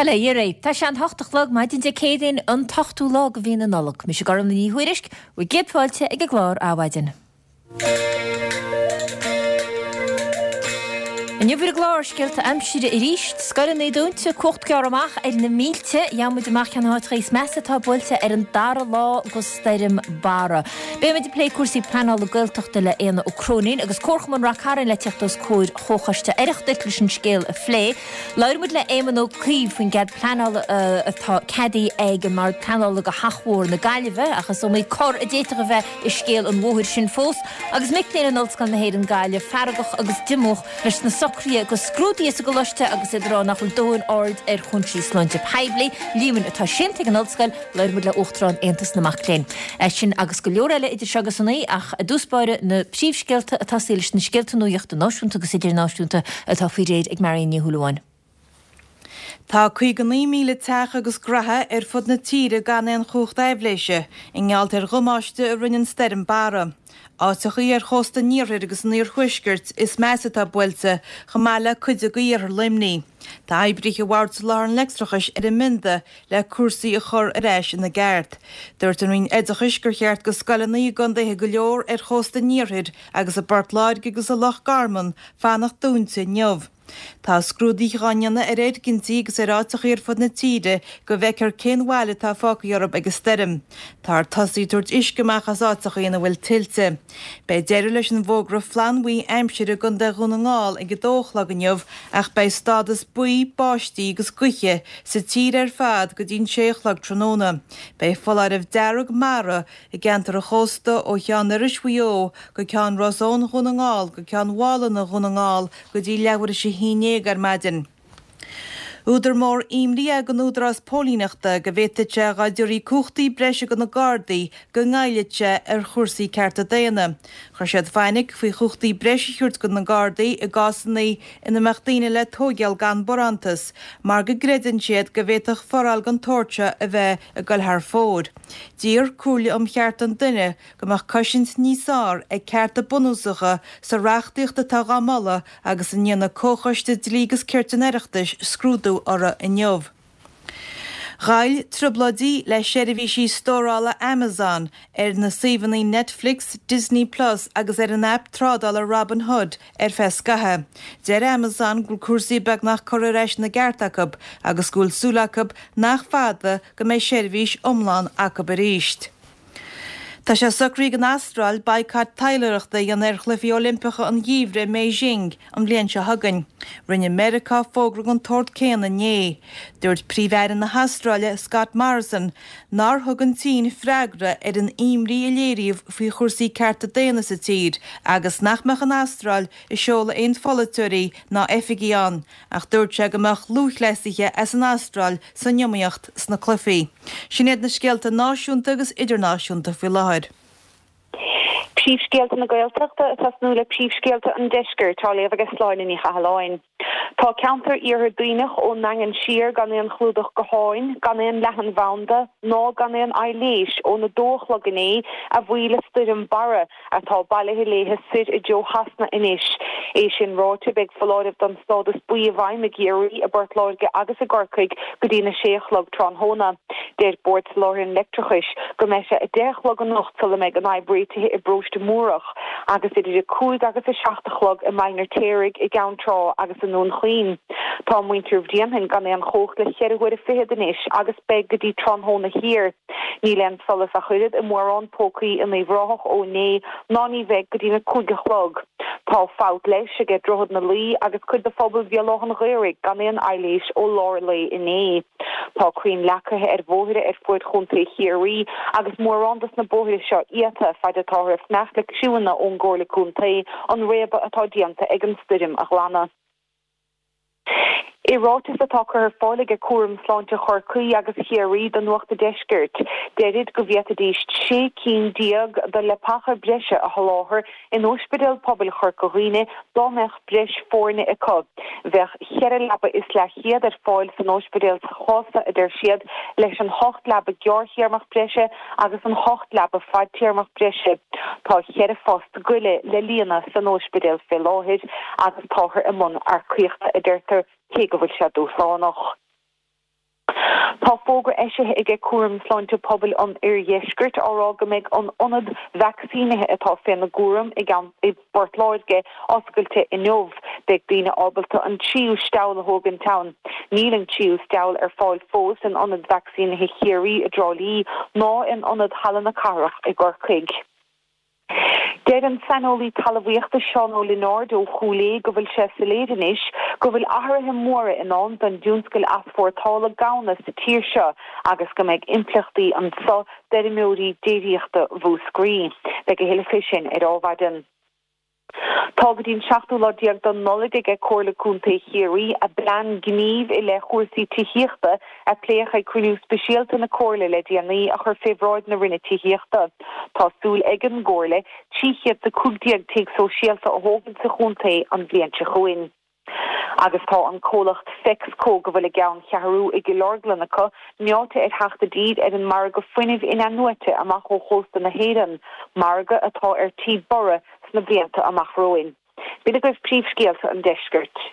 Bail ó Dhia oraibh. Tá sé an h-ocht a chlog maidin Dé Céadaoin, an t-ochtú lá de mhí na Nollag. Mise Gormlaith Ní Thuairisg, bhur gcéad fáilte ag an gclár Adhmhaidin. Inniu ar an gclár, scéalta aimsire arís, scoileanna dúnta, cumhacht gearrtha amach ar na mílte, gheobhaidh muid amach cén áiteacha is measa atá buailte ar an dara lá de stoirm Barra. Beidh muid ag plé cúrsaí pleanála Gaeltachta le Éanna Ó Cróinín agus Comharchumann Rath Cairn le teacht os comhair Chomhchoiste Oireachtais leis an scéal a phlé. Labhróidh muid le Éamon Ó Cuív faoin gcead pleanála atá ceadaithe ag an mBord Pleanála do Theach Mhór na Gaillimhe, ach is iomaí cor a d'fhéadfadh a bheith i scéal an bhóthair sin fós, agus mic léinn in Ollscoil na hÉireann Gaillimh feargach agus diomúch leis na socruithe do scrúduithe sa gcoláiste agus iad ag rá nach bhfuil dóthain aird ar chúinsí sláinte poiblí. Líomhain atá séanta ag an ollscoil. Labhróidh muid le Uachtarán Aontas na Mac Léinn. Sin agus go leor eile idir seo agus a naoi, ach i dtús báire na príomhscéalta ag tosaí leis na scéalta nuachta náisiúnta agus idirnáisiúnta atá faoi réir ag Marion Ní Shúilleabháin. Tá 59,000 teach agus graithe ar fud na tíre gan aon chumhacht aibhléise i ngeall ar dhamáiste a rinne an stoirm Barra. Áiteachaí ar chósta an iarthair agus an iarthuaiscirt is measa atá buailte, chomh maith le cuid de iarthar Luimnigh. Tá oibrithe Bhord Soláthair an Leictreachais ar an mbionda le cúrsaí a chur ar ais ina gceart. Dúirt an Roinn Oideachais gur cheart go scoileanna i gcontaetha go leor ar chósta an iarthair agus i bPort Láirge agus i Loch Garman fanacht dúnta inniu. Tá scrúduithe á ndéanamh ar fhoirgintí agus ar áiteachaí ar fud na tíre go bhfeicfear cén bhail atá fágtha orthu ag an stoirm. Táthar tosaithe ag tabhairt uisce amach as áiteachaí ina bhfuil tuilte. Beidh deireadh leis an bhfógra flannbhuí aimsire i gContae Dhún na nGall ag 2 a chlog inniu ach beidh stádas buí báistí agus gaoithe sa tír ar fad go dtí an 6 a chlog tráthnóna. Beidh foláireamh dearg mara i gceantar an chósta ó Cheann Iorrais Mhaigh Eo go Ceann Ros Eoin Dhún na nGall go Ceann Mhálanna Dhún na nGall go dtí leathuair théis a haon déag ar maidin. Údar mór imní ag an Údarás Póilíneachta go bhféadfadh sé dá dtabharfaí cumhachtaí breise do na Gardaí go ngoillfeadh sé ar chúrsaí cearta daonna. Chuir siad fainic faoi chumhachtaí breise a thabhairt do na Gardaí i gcásanna ina mbeadh daoine le tóigeáil gan barántas mar go gcreideann siad go bhféadfadh foráil den tsórt seo a bheith ag goil thar fóir. D'iarr Comhairle um Chearta an Duine go mbeadh cosaint níos fearr ag cearta bunúsacha sa reachtaíocht atá dhá moladh agus a ndéanfaidh Comhchoiste Dlí agus Cirt an Oireachtais scrúdú orthu inniu. Ghoill trioblóidí le seirbhísí stórála Amazon ar na suíomhanna Netflix, Disney Plus agus ar an aip trádála Robinhood ar feadh scaithimh. Deir Amazon go bhfuil cúrsaí beagnach curtha ar ais ina gceart acu agus go bhfuil súil acu nach fada go mbeidh seirbhís iomlán acu arís. Tá sé socraithe ag an Astráil baghcat taidhleoireachta a dhéanamh ar Chluichí Oilimpeacha an Gheimhridh i mBeijing an bhliain seo chugainn. Rinne Meiriceá fógra den tsórt céanna inné. Dúirt Príomh-Aire na hAstráile, Scott Morrison, nár thug an tSín freagra ar an imní a léiríodh faoi chúrsaí cearta daonna sa tír agus nach mbeadh an Astráil ag seoladh aon pholaiteoirí ná oifigigh ann. Ach dúirt sé go mbeadh lúthchleasaithe as an Astráil san iomaíocht sna cluichí. Sin iad na scéalta náisiúnta agus idirnáisiúnta faoi láthair. Príomhscéalta na Gaeltachta ag tosnú le príomhscéalta an Deiscirt á léamh ag Sláine Ní Chathalláin. Tá ceantar Iarthar Duibhneach ón nDaingean siar gan aon chlúdach gutháin, gan aon leathanbhanda ná gan aon aibhléis ón 2 a chlog inné a bhuí le stoirm Barra. atá bailithe léithe soir i dtreo Shasana anois. É sin ráite, beidh foláireamh don stádas buí i bhfeidhm i gCiarraí, i bPort Láirge agus i gCorcaigh go dtí na sé a chlog tráthnóna. Deir Bord Soláthair an Leictreachais go mbeidh sé 10 a chlog anocht sula mbeidh an fhadhb réitithe i bParóiste Múrach agus idir 5 agus 7 a chlog i mBaile an Fheirtéaraigh, i gCeann Trá agus i nDún Chaoin. Tá muintir Bhréanainn gan aon chumhacht le cheithre huaire fichead anois agus beidh go dtí tráthnóna thiar. Níl aon solas ach oiread i mórán pócaí in Uíbh Ráthach ó inné ná ní bheidh go dtí na cúig a chlog. Tá fabht leighis aige Droichead na Laoi agus cuid de phobal Bhéal Átha an Ghaorthaidh gan aon aibhléis ó lár an lae inné. Tá crainn leagtha ar bhóithre ar fuaid Chontae Chiarraí agus mórán dos na bóithre seo iata faid atáthar ag fanacht le criúnna ón gComhairle Contae an réabadh atá déanta ag an stoirm a ghlanadh. I ráiteas atá curtha ar fáil aige Cúram Sláinte Chorcaí agus Chiarraí do Nuacht a' Deiscirt, deirid go bhféadfaidís 16 cinn de leapacha breise a sholáthar in Ospidéal Pobail Chorca Dhuibhne dá mbeadh breis foirne acu. Bheadh cheithre leaba is leathchéad ar fáil san ospidéal sa chás seo, a deir siad, leis an hocht leaba gearrthéarmach breise agus an hocht leaba fadtéarmach breise. Tá cheithre phost goile le líonadh san ospidéal fé láthair agus táthar i mbun earcaíochta, a deirtear, cé go bhfuil sé dúshlánach. fógra eisithe aige Cúram Sláinte Pobail an Oirdheiscirt á rá go mbeidh an ionad vacsaínithe atá féna gcúram i i bPort Láirge oscailte inniu. Beidh daoine ábalta an tríú steall a thógaint ann. Níl an tríú steall ar fáil fós in ionad vacsaínithe Chiarraí i dTrá Lí ná in ionad Halla na Cathrach i gCorcaigh. Deir an saineolaí talmhaíochta Seán Ó Lionáird ó Chúil Aodha go bhfuil sé soiléir anois go bhfuil athruithe móra i ndán don dtionscal easpórtála gamhna sa tír seo agus go mbeidh impleachtaí anso d'fheirmeoirí déiríochta Mhúscraí. Beidh a thuilleadh fé sin ar Adhmhaidin. Tá go dtí an seachtú lá déag de Nollaig aige Comhairle Contae Chiarraí a bplean gnímh i leith chúrsaí tithíochta a pléadh ag cruinniú speisialta na Comhairle le déanaí a chur fé bhráid na Roinne Tithíochta. Tá súil ag an gComhairle 315 tigh sóisialta a thógaint sa chontae an bhliain seo chugainn. Agus tá an comhlacht Fexco, go bhfuil a gceanncheathrú i gCill Orglan acu, meáite ar theacht i dtír ar an margadh fuinnimh in-athnuaite amach ó chósta na hÉireann, margadh atá ar tí borradh sna blianta amach romhainn. B'in agaibh príomhscéalta an deiscirt.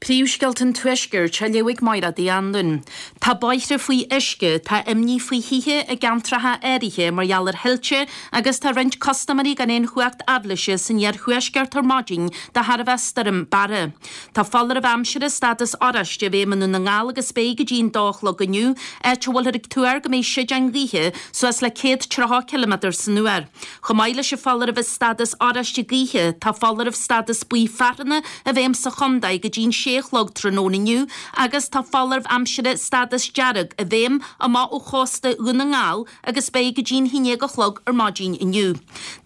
Príomhscéalta an Tuaiscirt á léamh ag Máire Uí Anluain. Tá bóithre faoi uisce, tá imní faoi thithe i gceantracha áirithe mar gheall ar thuilte agus tá roinnt custaiméirí gan aon chumhacht aibhléise san iarthuaisceart ar maidin de thairbhe Stoirm Barra. Tá foláireamh aimsire stádas oráiste i bhfeidhm i nDún na nGall agus beidh go dtí an dó a chlog inniu, áit a bhfuilthear ag tuar go mbeidh séideáin ghaoithe suas le 130 ciliméadar san uair. Chomh maith leis an foláireamh stádas oráiste gaoithe, tá foláireamh stádas buí fearthanna i bhfeidhm sa chontae go dtí'n sé a chlog tráthnóna inniu agus tá foláireamh aimsire stádas dearg i bhfeidhm amach ó chósta Dhún na nGall agus beidh go dtí'n haon déag a chlog ar maidin inniu.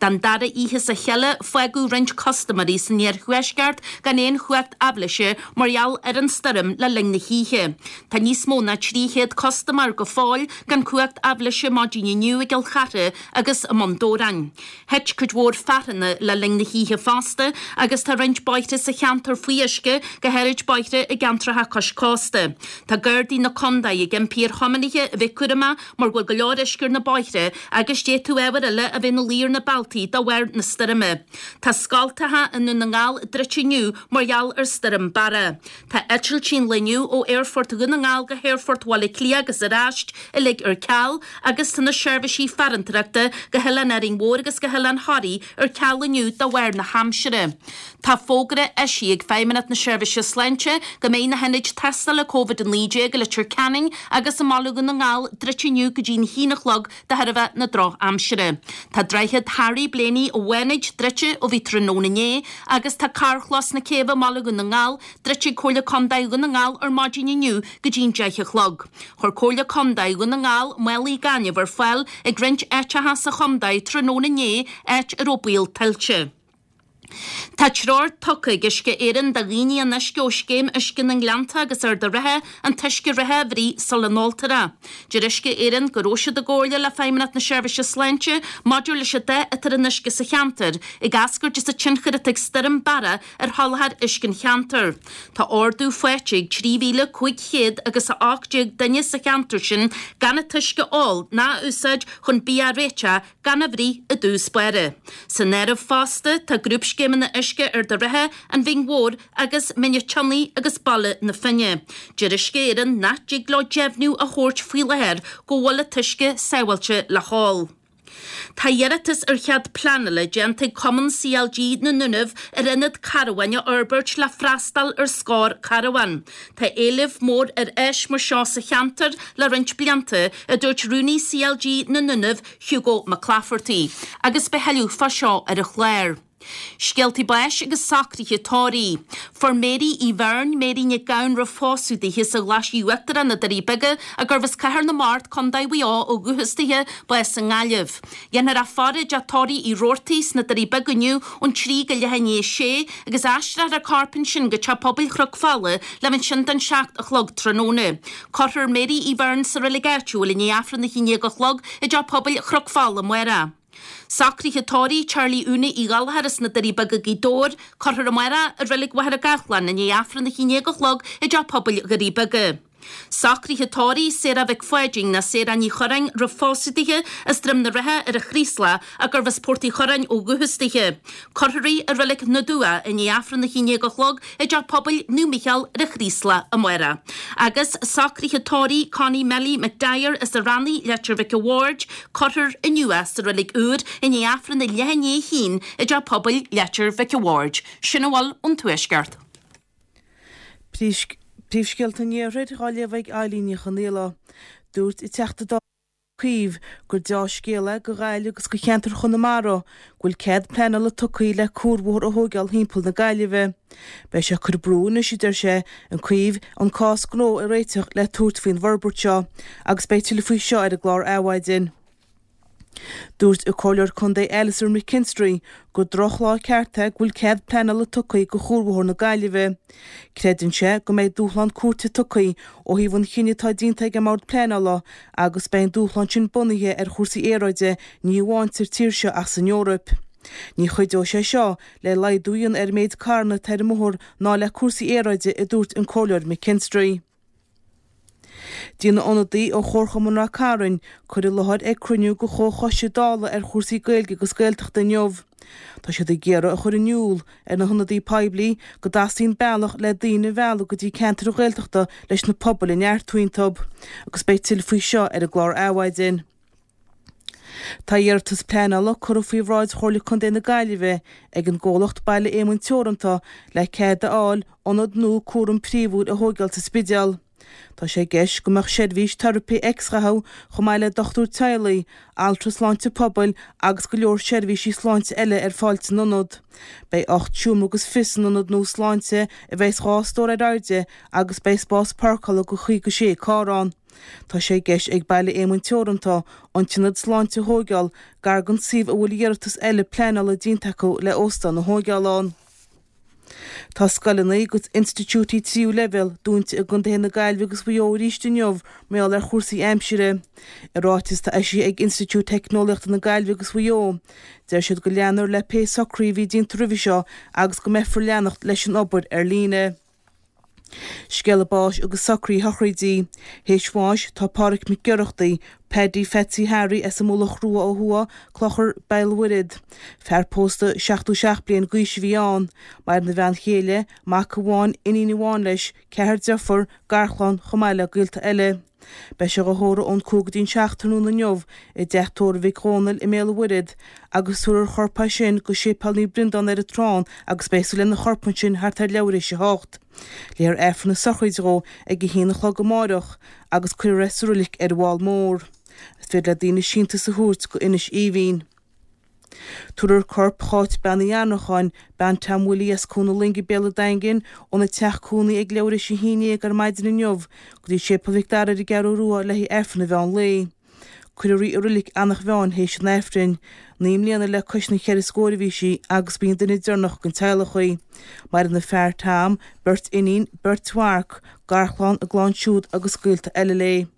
Don dara oíche as a chéile, fágadh roinnt custaiméirí san iarthuaisceart gan aon chumhacht aibhléise mar gheall ar an stoirm le linn na hoíche. Tá níos mó ná 300 custaiméir go fóill gan cumhacht aibhléise maidin inniu i gCill Chartha agus i mBun Dobhráin. Thit cuid mhór fearthanna le linn na hoíche fosta agus tá roinnt bóithre sa cheantar faoi uisce, go háirid bóithre i gceantracha cois cósta. Tá Gardaí na contae ag impí ar thiománaithe a bheith cúramach mar go bhfuil go leor uisce ar na bóithre agus d'fhéadfadh ábhair eile a bheith ina luí ar na bealtaí de bharr na stoirme. Tá scoltacha i nDún na nGall druidte inniu mar gheall ar Stoirm Barra. Tá eitiltí an lae inniu ó Aerfort Dhún na nGall go hAerfort Bhaile Átha Cliath agus ar ais uilig ar ceal agus tá na seirbhísí farantóireachta go hOileán Árainn Mhór agus go hOileán Thoraí ar ceal inniu de bharr na haimsire. Tá fógra eisithe ag Feidhmeannacht na Seirbhíse Sláinte go mbeidh na hionaid tástála Covid-19 i Leitir Ceanainn agus i mBaile Dhún na nGall druidte inniu go dtí'n haon a chlog de thairbhe na drochaimsire. Tá Droichead Harry Blaney i bhFánaid druidte ó bhí tráthnóna inné agus tá Carrchlós na Céibhe i mBaile Dhún na nGall druidte ag Comhairle Contae Dhún na nGall ar maidin inniu go dtí'n 10 a chlog. Chuir Comhairle Contae Dhún na nGall málaí gainimh ar fáil ag roinnt áiteacha sa chontae tráthnóna inné áit a raibh baol tuilte. Tá treoir tugtha ag Uisce Éireann do dhaoine an uisce ó Scéim Uisce na nGleannta agus Ard an Rátha an t-uisce reatha a bhruith sula n-óltar é. Deir Uisce Éireann go raibh siad i gcomhairle le Feidhmeannacht na Seirbhíse Sláinte maidir leis an dath atá ar an uisce sa cheantar, ag eascairt as an tionchar atá ag Stoirm Barra ar sholáthar uisce an cheantair. Tá ordú faighte ag 3,500 agus 18 duine sa cheantar sin gan an t-uisce a ól ná a úsáid chun bia a réiteach gan a bhruith i dtús báire. San áireamh fosta tá grúpscéimeanna uisce Ard an Rátha, An Bhinn Mhór agus Mín an tSionnaigh agus Baile na Finne. Deir Uisce Éireann nach dtig leo deimhniú a thabhairt faoi láthair go bhfuil an t-uisce sábháilte le hól. Tá iarratas ar chead pleanála déanta ag Cumann CLG na nDúnaibh ar ionad carbháin a fhorbairt le freastal ar scór carbhán. Tá éileamh mór ar áis mar seo sa cheantar le roinnt blianta, a dúirt Rúnaí CLG na nDúnaibh, Hugo McClafferty, agus beidh a thuilleadh fá seo ar an chlár. Scéaltaí báis agus socruithe tórraimh. Fuair Mary Uí Bheirn, Mary Nic Gabhann roimh phósadh dithe sa Ghlaisigh Uachtarach na Doirí Beaga, a gurbh as Cathair na Mart, Co. Mhaigh Eo ó dhúchas dithe, bás i nGaillimh. Dhéanfar í a faire i dteach tórraimh Uí Robhartaigh sna Doirí Beaga inniu ón 3 go leath i ndiaidh a sé agus aistreofar a corp ansin go Teach Pobail Chnoc Fola le bheith ansin don 7 a chlog tráthnóna. Cuirfear Mary Uí Bheirn sa reilig áitiúil i ndiaidh Aifreann a haon déag a chlog i dTeach Pobail Chnoc Fola amárach. Socruithe tórraimh Charlie Úna Uí Ghallchóir as na Doirí Beaga Gaoth Dobhair, cuirfear amárach i Reilig Mhachaire Gathlán i ndiaidh Aifreann a haon déag a chlog i dTeach Pobail Dhoirí Beaga. Socruithe tórraimh Sarah Mhic Pháidín nó Sarah Ní Churráin roimh phósadh dithe as Droim na Rátha ar an Chraoslach ach gurbh as Port Uí Churráin ó dhúchas dithe. Cuirfear í i Reilig na dTuath i ndiaidh Aifreann a 11 a chlog i dTeach Pobail Naomh Mícheál ar an Chraoslach amárach. Agus socruithe tórraimh Connie Melly McDyer as an Rannaigh, Leitir Mhic a' Bhaird, cuirfear inniu í sa Reilig Úr i ndiaidh Aifreann a leath i ndiaidh a haon i dTeach Pobail Leitir Mhic a' Bhaird. Sin a bhfuil ón Tuaisceart. Príomhscéalta an Iarthair á léamh ag Eilín Ní Chonaola. Dúirt an Teachta Dála Ó Cuív gur deá-scéal é do Ghaillimh agus do cheantar Chonamara go bhfuil cead pleanála tugtha le cuarbhóthar a thóigeáil thimpeall na Gaillimhe. Beidh sé ag cur brú anois, a deir sé, an Cuív, an cás gnó a réiteach le tabhairt faoin bhforbairt seo agus beidh tuilleadh faoi seo ar an gclár Adhmhaidin. Dúirt an Comhairleoir Contae Alastair McKinstry gur drochlá ceart é go bhfuil cead pleanála tugtha do Chuarbhóthar na Gaillimhe. Creideann sé go mbeidh dúshlán cúirte tugtha ó thaobh an chinnidh atá déanta ag an mBord Pleanála agus beidh an dúshlán sin bunaithe ar chúrsaí aeráide ní amháin sa tír seo ach san Eoraip. Ní chuideoidh sé seo le laghdú a dhéanamh ar an méid carranna atá ar an mbóthar ná le cúrsaí aeráide, a dúirt an Comhairleoir McKinstry. Déanfaidh ionadaí ó Chomharchumann Ráth Cairn cur i láthair ag cruinniú de Chomhchoiste Dála ar chúrsaí Gaeilge agus Gaeltachta inniu. Tá siad ag iarraidh a chur in iúl ar na hionadaí poiblí go dteastaíonn bealach le daoine a mhealladh go dtí ceantair Ghaeltachta leis na pobail a neartú iontu. Agus beidh tuilleadh faoi seo ar an gclár Adhmhaidin. Tá iarratas pleanála curtha faoi bhráid Chomhairle Contae na Gaillimhe ag an gcomhlacht Baile Éamoinn Teoranta le cead a fháil ionad nua cúram príomhúil a thóigeáil sa Spidéal. Tá sé i gceist go mbeadh seirbhís teiripe x-ghatha chomh maith le dochtúir teaghlaigh, altra sláinte pobail agus go leor seirbhísí sláinte eile ar fáil san ionad. Beidh 8 seomra agus fiche san ionad nua sláinte a bheas 2 stór ar airde agus beidh spás páirceála do 56 carr ann. Tá sé i gceist ag Baile Éamoinn Teoranta an t-ionad sláinte a thóigeáil gar don suíomh a bhfuil iarratas eile pleanála déanta acu le óstán a thóigeáil ann. Tá scoileanna agus institiúidí tríú leibhéal dúnta i gcontaetha na Gaillimhe agus Mhaigh Eo arís inniu mar gheall ar chúrsaí aimsire. I ráiteas atá eisithe ag Institiúid Teicneolaíochta na Gaillimhe agus Mhaigh Eo, deir siad go leanfar le pé socruithe a bhí déanta roimhe seo agus go mbeifear leanacht leis an obair ar líne. Scéala báis agus socruithe sochraide. Théis bháis tá Pádhraic Mac Oireachtaigh, Paddy Phatsy Harry as an Mullach Rua ó thuaidh, Clochar Béal Mhuirthead. Fear pósta 77 bliain d'aois a bhí ann. Maireann a bhean chéile, mac amháin, iníon amháin leis, ceathrar deirfiúr, garchlann, chomh maith le gaolta eile. Beidh sé dhá thórramh ón 5 go dtí'n 7 tráthnóna inniu i dteach tórraimh Mhic Dhónaill i mBéal an Mhuirthead agus tabharfar a chorp as sin go Séipéal Naomh Breandán ar an Trán agus beidh súil lena chorp ansin thart ar leathuair théis a hocht. Léifear Aifreann na sochraide dhó ag a haon a chlog amáireach agus cuirfear é sa roilig ar an bhFál Mór. Is féidir le daoine síntiús a thabhairt go Inis Aoibhinn. Tabharfar corp Cháit Bean Uí Annracháin, bean Tom Willie as Cuan na Loinge Béal an Daingin, óna teach cónaí ag leathuair théis a haon dhéag ar maidin inniu go dtí Séipéal Mhic Dara ar an gCeathrú Rua le haghaidh Aifreann an mheán lae. Cuirfear í i Roilig Eanach Mheáin théis an Aifrinn. 9 mbliana le cois na cheithre scóir a bhí sí agus ba í an duine deireanach den teaghlach í. Maireann a fear Tom, beirt iníon, beirt mhac, garchlann, a gclann siúd agus gaolta eile léi.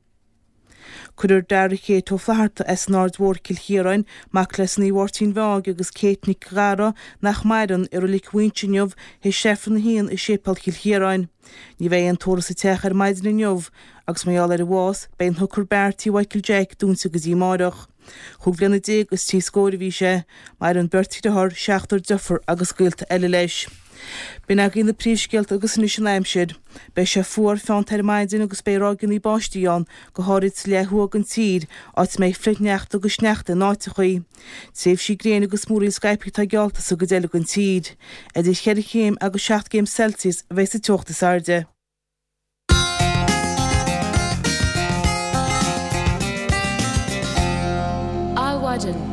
Cuirfear Dara Kate Ó Flatharta as an Aird Mhór, Cill Chiaráin, mac le Sonaí Mháirtín Mheáig agus Kate Nic Ghadhra, nach maireann, i Roilig Mhaínse inniu théis Aifreann a haon i Séipéal Chill Chiaráin. Ní bheidh aon tórramh sa teach ar maidin inniu agus mar gheall ar a bhás, beidh an Hooker Bar Tí Mhichael Jack dúnta go dtí amáireach. Chúig bhliana déag is trí scóir a bhí sé. Maireann beirt dhriotháir, seachtar deirfiúr agus gaolta eile leis. B'in agaibh na príomhscéalta agus anois an aimsir. Beidh sé fuar feannta ar maidin agus beidh ráigeanna báistí ann, go háirid sa leath thuaidh den tír, áit a mbeidh flichshneachta agus sneachta in áiteachaí. Tréimhsí gréine agus múraíl scaipthe atá geallta sa gcuid eile den tír. Idir cheithre chéim agus seacht gcéim Celsius a bheidh sa teocht is airde. Adhmhaidin.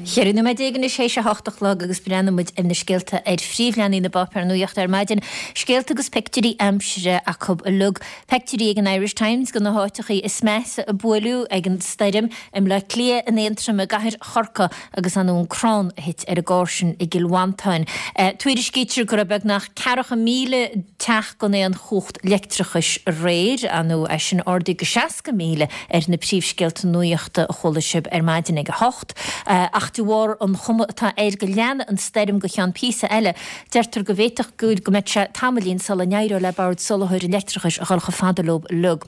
14 nóiméad anois théis a hocht a chlog agus breathnóidh muid ar na scéalta ar phríomhleathanaigh na bpáipéar nuachta ar maidin. Scéalta agus pictiúirí aimsire acu uilig. Pictiúirí ag an Irish Times de na háiteachaí is measa a buaileadh ag an stoirm, i mBleá Cliath, in Aontroim, i gcathair Chorcaí agus ar ndóigh an crann a thit ar an gcarr sin i gCill Mhantáin. Tuairiscítear go raibh beagnach 40,000 teach gan aon chumhacht leictreachais aréir, ar ndóigh é sin ardaithe go 60,000 ar na príomhscéalta nuachta a chuala sibh ar maidin ag a hocht. Ach de. bharr an chuma atá air go leanfaidh an stoirm go cheann píosa eile, deirtear go bhféadfadh go mbeadh sé tamaillín sula n-éireodh le Bord Soláthair an Leictreachais a dhul chomh fada leo uilig.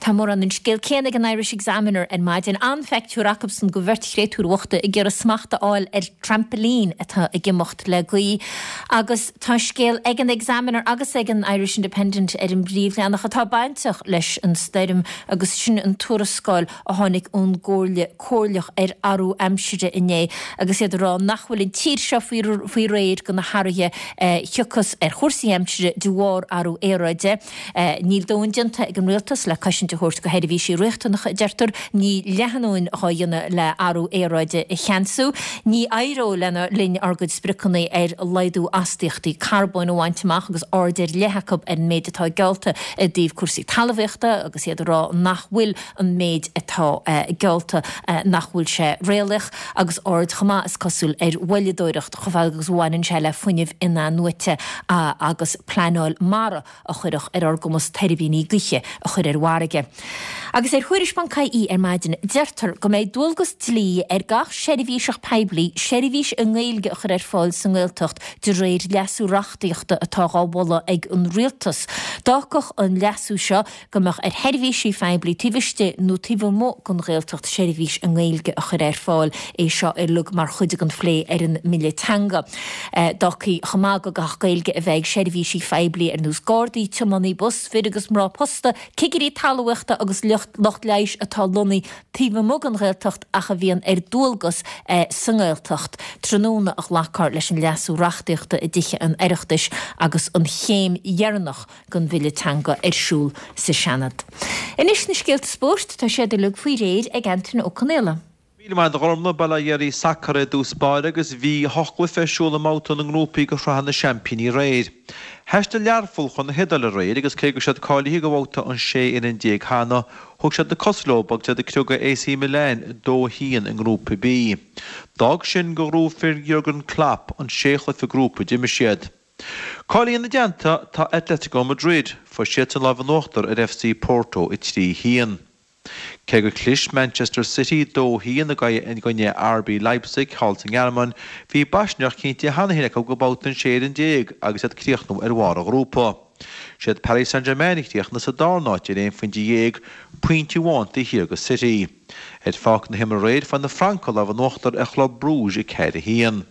Tá mórán an scéal céanna ag an Irish Examiner ar maidin. An-phictiúr acubsan de bheirt chréatúr bhochta ag iarraidh smacht a fháil ar trampoline atá ag imeacht le gaoth. Agus tá scéal ag an Examiner agus ag an Irish Independent ar an bpríomhleathanach atá bainteach leis an stoirm agus sin an tuarascáil a tháinig ón gComhairle Comhairleach ar Athrú Aimsire inné agus iad ag rá nach bhfuil an tír seo faoi réir do na hathruithe a thiocfas ar chúrsaí aimsire de bharr athrú aeráide. Níl dóthain déanta ag an rialtas le cosaint a thabhairt do sheirbhísí riachtanacha, a deirtear. Níl leath a ndóthain dhá dhéanamh le athrú aeráide a cheansú. Ní éireoidh lena linn ár gcuid spriocanna ar laghdú astaíochtaí carbóin a bhaint amach agus aird ar leith acu ar an méid atá geallta i dtaobh cúrsaí talmhaíochta agus iad ag rá nach bhfuil an méid atá geallta, nach bhfuil sé réalaíoch agus aird chomh maith, is cosúil, ar mhoilleadóireacht chomh fada agus a bhaineann sé le fuinneamh in-athnuaite agus pleanáil mara a chuirfeadh ar ár gcumas tuirbíní gaoithe a chur ar an bhfarraige. Agus ar Thuairisc.ie ar maidin, deirtear go mbeidh dualgas dlí ar gach seirbhíseach poiblí seirbhís i nGaeilge a chur ar fáil sa nGaeltacht de réir leasú reachtaíochta atá dhá mholadh ag an Rialtas. D'fhágfadh an leasú seo go mbeadh ar sheirbhísí phoiblí taobh istigh nó taobh amuigh den Ghaeltacht seirbhís i nGaeilge a chur ar fáil, é seo uilig mar chuid den phlé ar an mBille Teanga. D'fhágfaí chomh maith go gcaithfeadh Gaeilge a bheith ag seirbhísigh phoiblí ar nós Gardaí, tiománaí bus, fir agus mná posta, cigirí talmhaíochta agus lucht leighis atá lonnaithe taobh amuigh den Ghaeltacht ach a bhíonn ar dualgas sa nGaeltacht. Tráthnóna a ghlacfar leis an leasú reachtaíochta i dTithe an Oireachtais agus an chéim dheireanach den bhille teanga ar siúl sa Seanad. Anois na scéalta spóirt, tá siad uilig faoi réir ag Antaine Ó Conaola. Míle maith agat a Ghormlaith, Bail ó Dhia ar sacar i dtús báire agus bhí hocht gcluiche ar siúl i mbabhta na ngrúpaí de Shraith na Seaimpíní aréir. Thaistil Learpholl chun na hIodáile aréir agus cé go raibh siad cáilithe do bhabhta an 16 fhoireann cheana, thug siad na cosa leo agus iad ag criogadh AC Milan 2-1 i nGrúpa B. D'fhág sin gur ghnóthaigh fir Jurgen Klopp an sé chluiche grúpa a d'imir siad. Cáilithe ina dteannta tá Atletico Madrid, fuair siadsan lámh in uachtar ar FC Porto 3, 1. Cé gur chlis Manchester City 2, 1 i gcoinne RB Leipzig thall sa nGearmáin, bhí baisneach cinnte cheana féin acu go babhta an 16 fhoireann agus iad críochnú ar bharr an ghrúpa. Siad Paris Saint-Germain a chríochnaigh sa darna háit ar aon phointe dhéag, pointe amháin taobh thiar de City. Ar pháirc na himeartha aréir fuair na Francaigh lámh in uachtar ar Chlub Brugge 4, 1.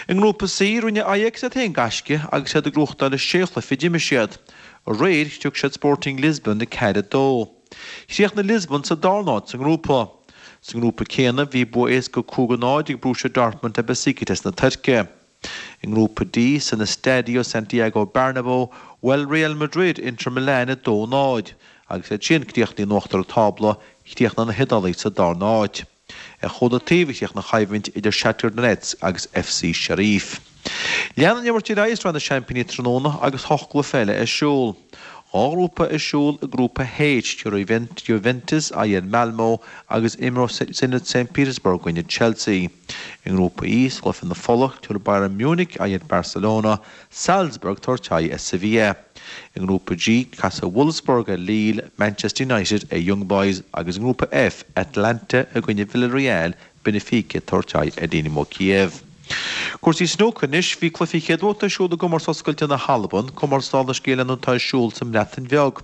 I nGrúpa C, rinne Ajax iad féin gaisce agus iad ag gnóthachtáil a sé chluiche a d'imir siad. Aréir, chrioc siad Sporting Lisbon 4, 2. Chríochnaigh Lisbon sa darna háit sa ngrúpa. Sa ngrúpa céanna, bhí bua éasca 5, 0 ag Borussia Dortmund ar Besiktas na Tuirce. I nGrúpa D, san Estadio Santiago Bernabeu, bhuail Real Madrid Inter Milan 2, 0. Agus iad sin críochnaithe in uachtar an tábla, chríochnaigh na hIodálaigh sa darna háit. Ar chúl an taobh a chríochnaigh an choimhlint idir Shakhtar Donetsk agus FC Sheriff. Leanann an imirt ar aghaidh i Sraith na Seaimpíní tráthnóna agus hocht gcluiche eile ar siúl. Dhá ghrúpa ar siúl i nGrúpa H, tabharfaidh Juventus aghaidh ar Malmo agus imreoidh Zenit St Petersburg i gcoinne Chelsea. I nGrúpa E, sa gcluiche na fola, tabharfaidh Bayern Munich aghaidh ar Barcelona, Salzburg tabhairt aghaidh ar Sevilla. I nGrúpa G, casfaidh Wolfsburg ar Lille, Manchester United ar Young Boys agus i nGrúpa F, Atalanta i gcoinne Villarreal, Benfica tabhairt aghaidh ar Dynamo Kiev. Cúrsaí snúcair anois, bhí cluichí chéad bhabhta ar siúl i gcomórtas oscailte na hAlban, comórtas dála an scéil atá ar siúl sa mBreatain Bheag.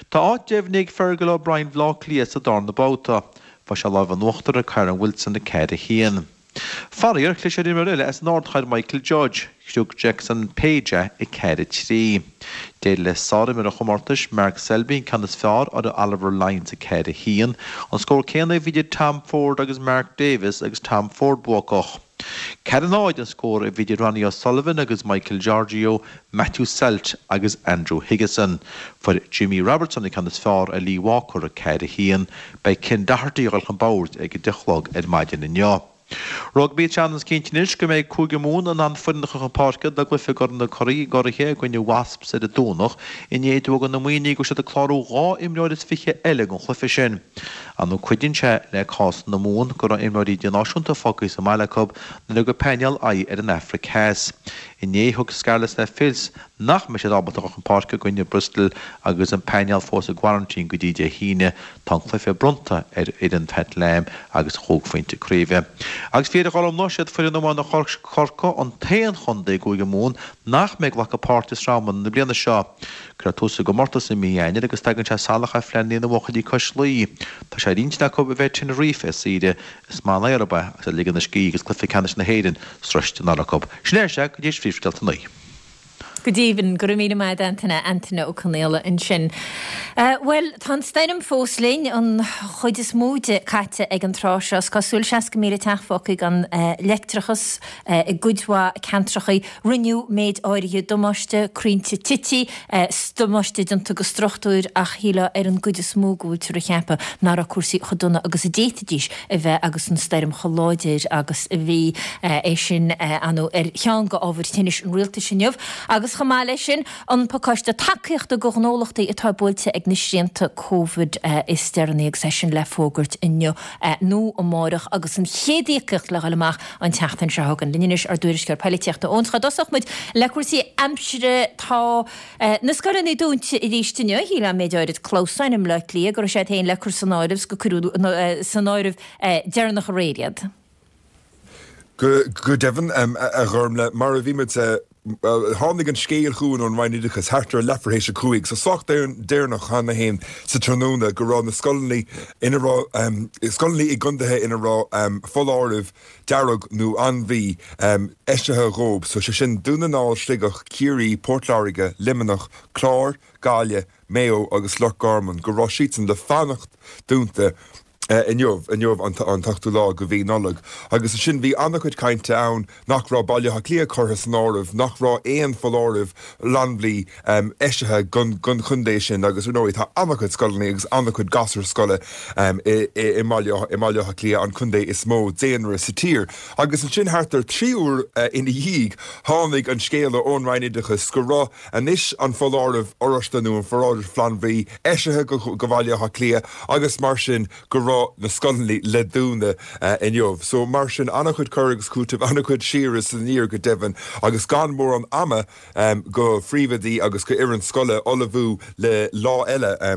Tá áit deimhnithe ag Fergal O'Brien Bhaile Átha Cliath sa darna babhta. Fuair sé lámh in uachtar ar Kyren Wilson 4, 1. Faraor, chlis ar imreoir eile as an ardchathair Michael Judge, chrioc Jackson Page é 4, 3. D'éirigh le sárimreoir an chomórtais, Mark Selby an ceann is fearr ar Oliver Lines 4, 1. An scór céanna a bhí idir Tom Ford agus Mark Davis agus Tom Ford buacach. 4, 0 an scór a bhí idir Ronnie O'Sullivan agus Michael Georgiou, Matthew Selt agus Andrew Higginson. Fuair Jimmy Robertson an ceann is fearr ar Lee Walker 4, 1. Beidh Ken Doherty ag dul chun boird ag a 10 a chlog ar maidin inniu. Rugbaí Tá seans cinnte anois go mbeidh Cúige Mumhan in ann foireann a chur chun páirce dá gcluiche i gCorn na gCuraithe i gcoinne Wasps ar an Domhnach i ndiaidh d'fhógra na Muimhnigh go bhfuil siad ag clárú 22 imreoir eile don chluiche sin. Ar ndóigh cuidíonn sé le cás na Mumhan go raibh imreoirí idirnáisiúnta fágtha sa mbaile acu nuair a thug an painéal aghaidh ar an Afraic Theas. Inné thug Scarlets le fios nach mbeidh siad ábalta dul chun páirce i gcoinne Bristol agus an painéal fós i gcoraintín go dtí Dé hAoine. Tá an cluiche bronnta ar fhoireann Pat Lam agus chúig phointe craoibhe. Agus fíor a Ghormfhlaith, siad foireann iomána Chorcaí an t-aon chontae i gCúige Mumhan nach mbeidh ag glacadh páirte i Sraith Iomána na bliana seo. Cuirfear tús sa gcomórtas i mí Eanáir agus tagann sé salach ar phleananna na mbuachaillí cois Laoi. Tá sé ar intinn acu a bheith ar Tenerife ar saoire Is maith an aer ab ea agus ag ligean a scíth agus cluiche ceannais na hÉireann sroiste anall acu. Sin é, sea, go dtí phríomhscéalta an lae. Go deimhin, go raibh míle maith agat Antaine, Antaine Ó Conaola ansin. Bhuel, tá an stoirm fós linn, an chuid is mó di caite ag an tráth seo. Is cosúil, 60,000 teach fágtha gan leictreachas i gcuid mhaith ceantrachaí. Rinneadh méid áirithe damáiste, crainnte tite, damáiste déanta go struchtúir ach shílfeá ar an gcuid is mó go bhfuiltear ag ceapadh nach raibh cúrsaí chomh dona agus a d'fhéadfaidís a bheith agus an stoirm chomh láidir agus a bhí. É sin, ar ndóigh, ar cheann de ábhair tinnis an rialtais inniu agus chomh maith leis sin, an pacáiste tacaíochta do ghnólachtaí atá buailte ag na srianta Covid is deireanaí agus é sin le fógairt inniu nó amárach agus an chéad íocaíocht le dhul amach an tseachtain seo chugainn. Linn anois ár dtuairisceoir poilitíochta Eoin. Cá dtosódh muid le cúrsaí aimsire? Tá na scoileanna dúnta arís inniu. Shílfeá méid áirid clamhsáin i mBleá Cliath go raibh siad féin le cur san áireamh 's gur cuireadh san áireamh deireanach aréir iad. Go deimhin, a Ghormfhlaith, mar a bhí muid, tháinig an scéal chugainn ón Roinn Oideachais thart ar leathuair théis a 5, so sách deireanach cheana féin sa tráthnóna, go raibh na scoileanna ina raibh, scoileanna i gcontaetha ina raibh foláireamh dearg nó anbhaí eisithe dhóibh, so sé sin Dún na nGall, Sligeach, Ciarraí, Port Láirge, Luimneach, Clár, Gaillimh, Maigh Eo agus Loch Garman, go raibh siadsan le fanacht dúnta inniu, inniu an t-ochtú lá de mhí Nollag. Agus ansin bhí an-chuid cainte ann nach raibh Baile Átha Cliath curtha san áireamh, nach raibh aon foláireamh flannbhuí eisithe don chontae sin agus ar ndóigh tá an-chuid scoileanna agus an-chuid gasúr scoile i mBaile Átha Cliath, an contae is mó daonra sa tír. Agus ansin thart ar 3 uair ina dhiaidh tháinig an scéala ón Roinn Oideachais go raibh anois an foláireamh oráiste nó an foláireamh flannbhuí eisithe go Bhaile Átha Cliath agus mar sin go raibh na scoileanna le dúnadh inniu. So mar sin an-chuid cur agus cúiteamh, an-chuid siar is aniar go deimhin agus gan mórán ama go phríomhoidí agus go fhoireann scoile ullmhú le lá eile a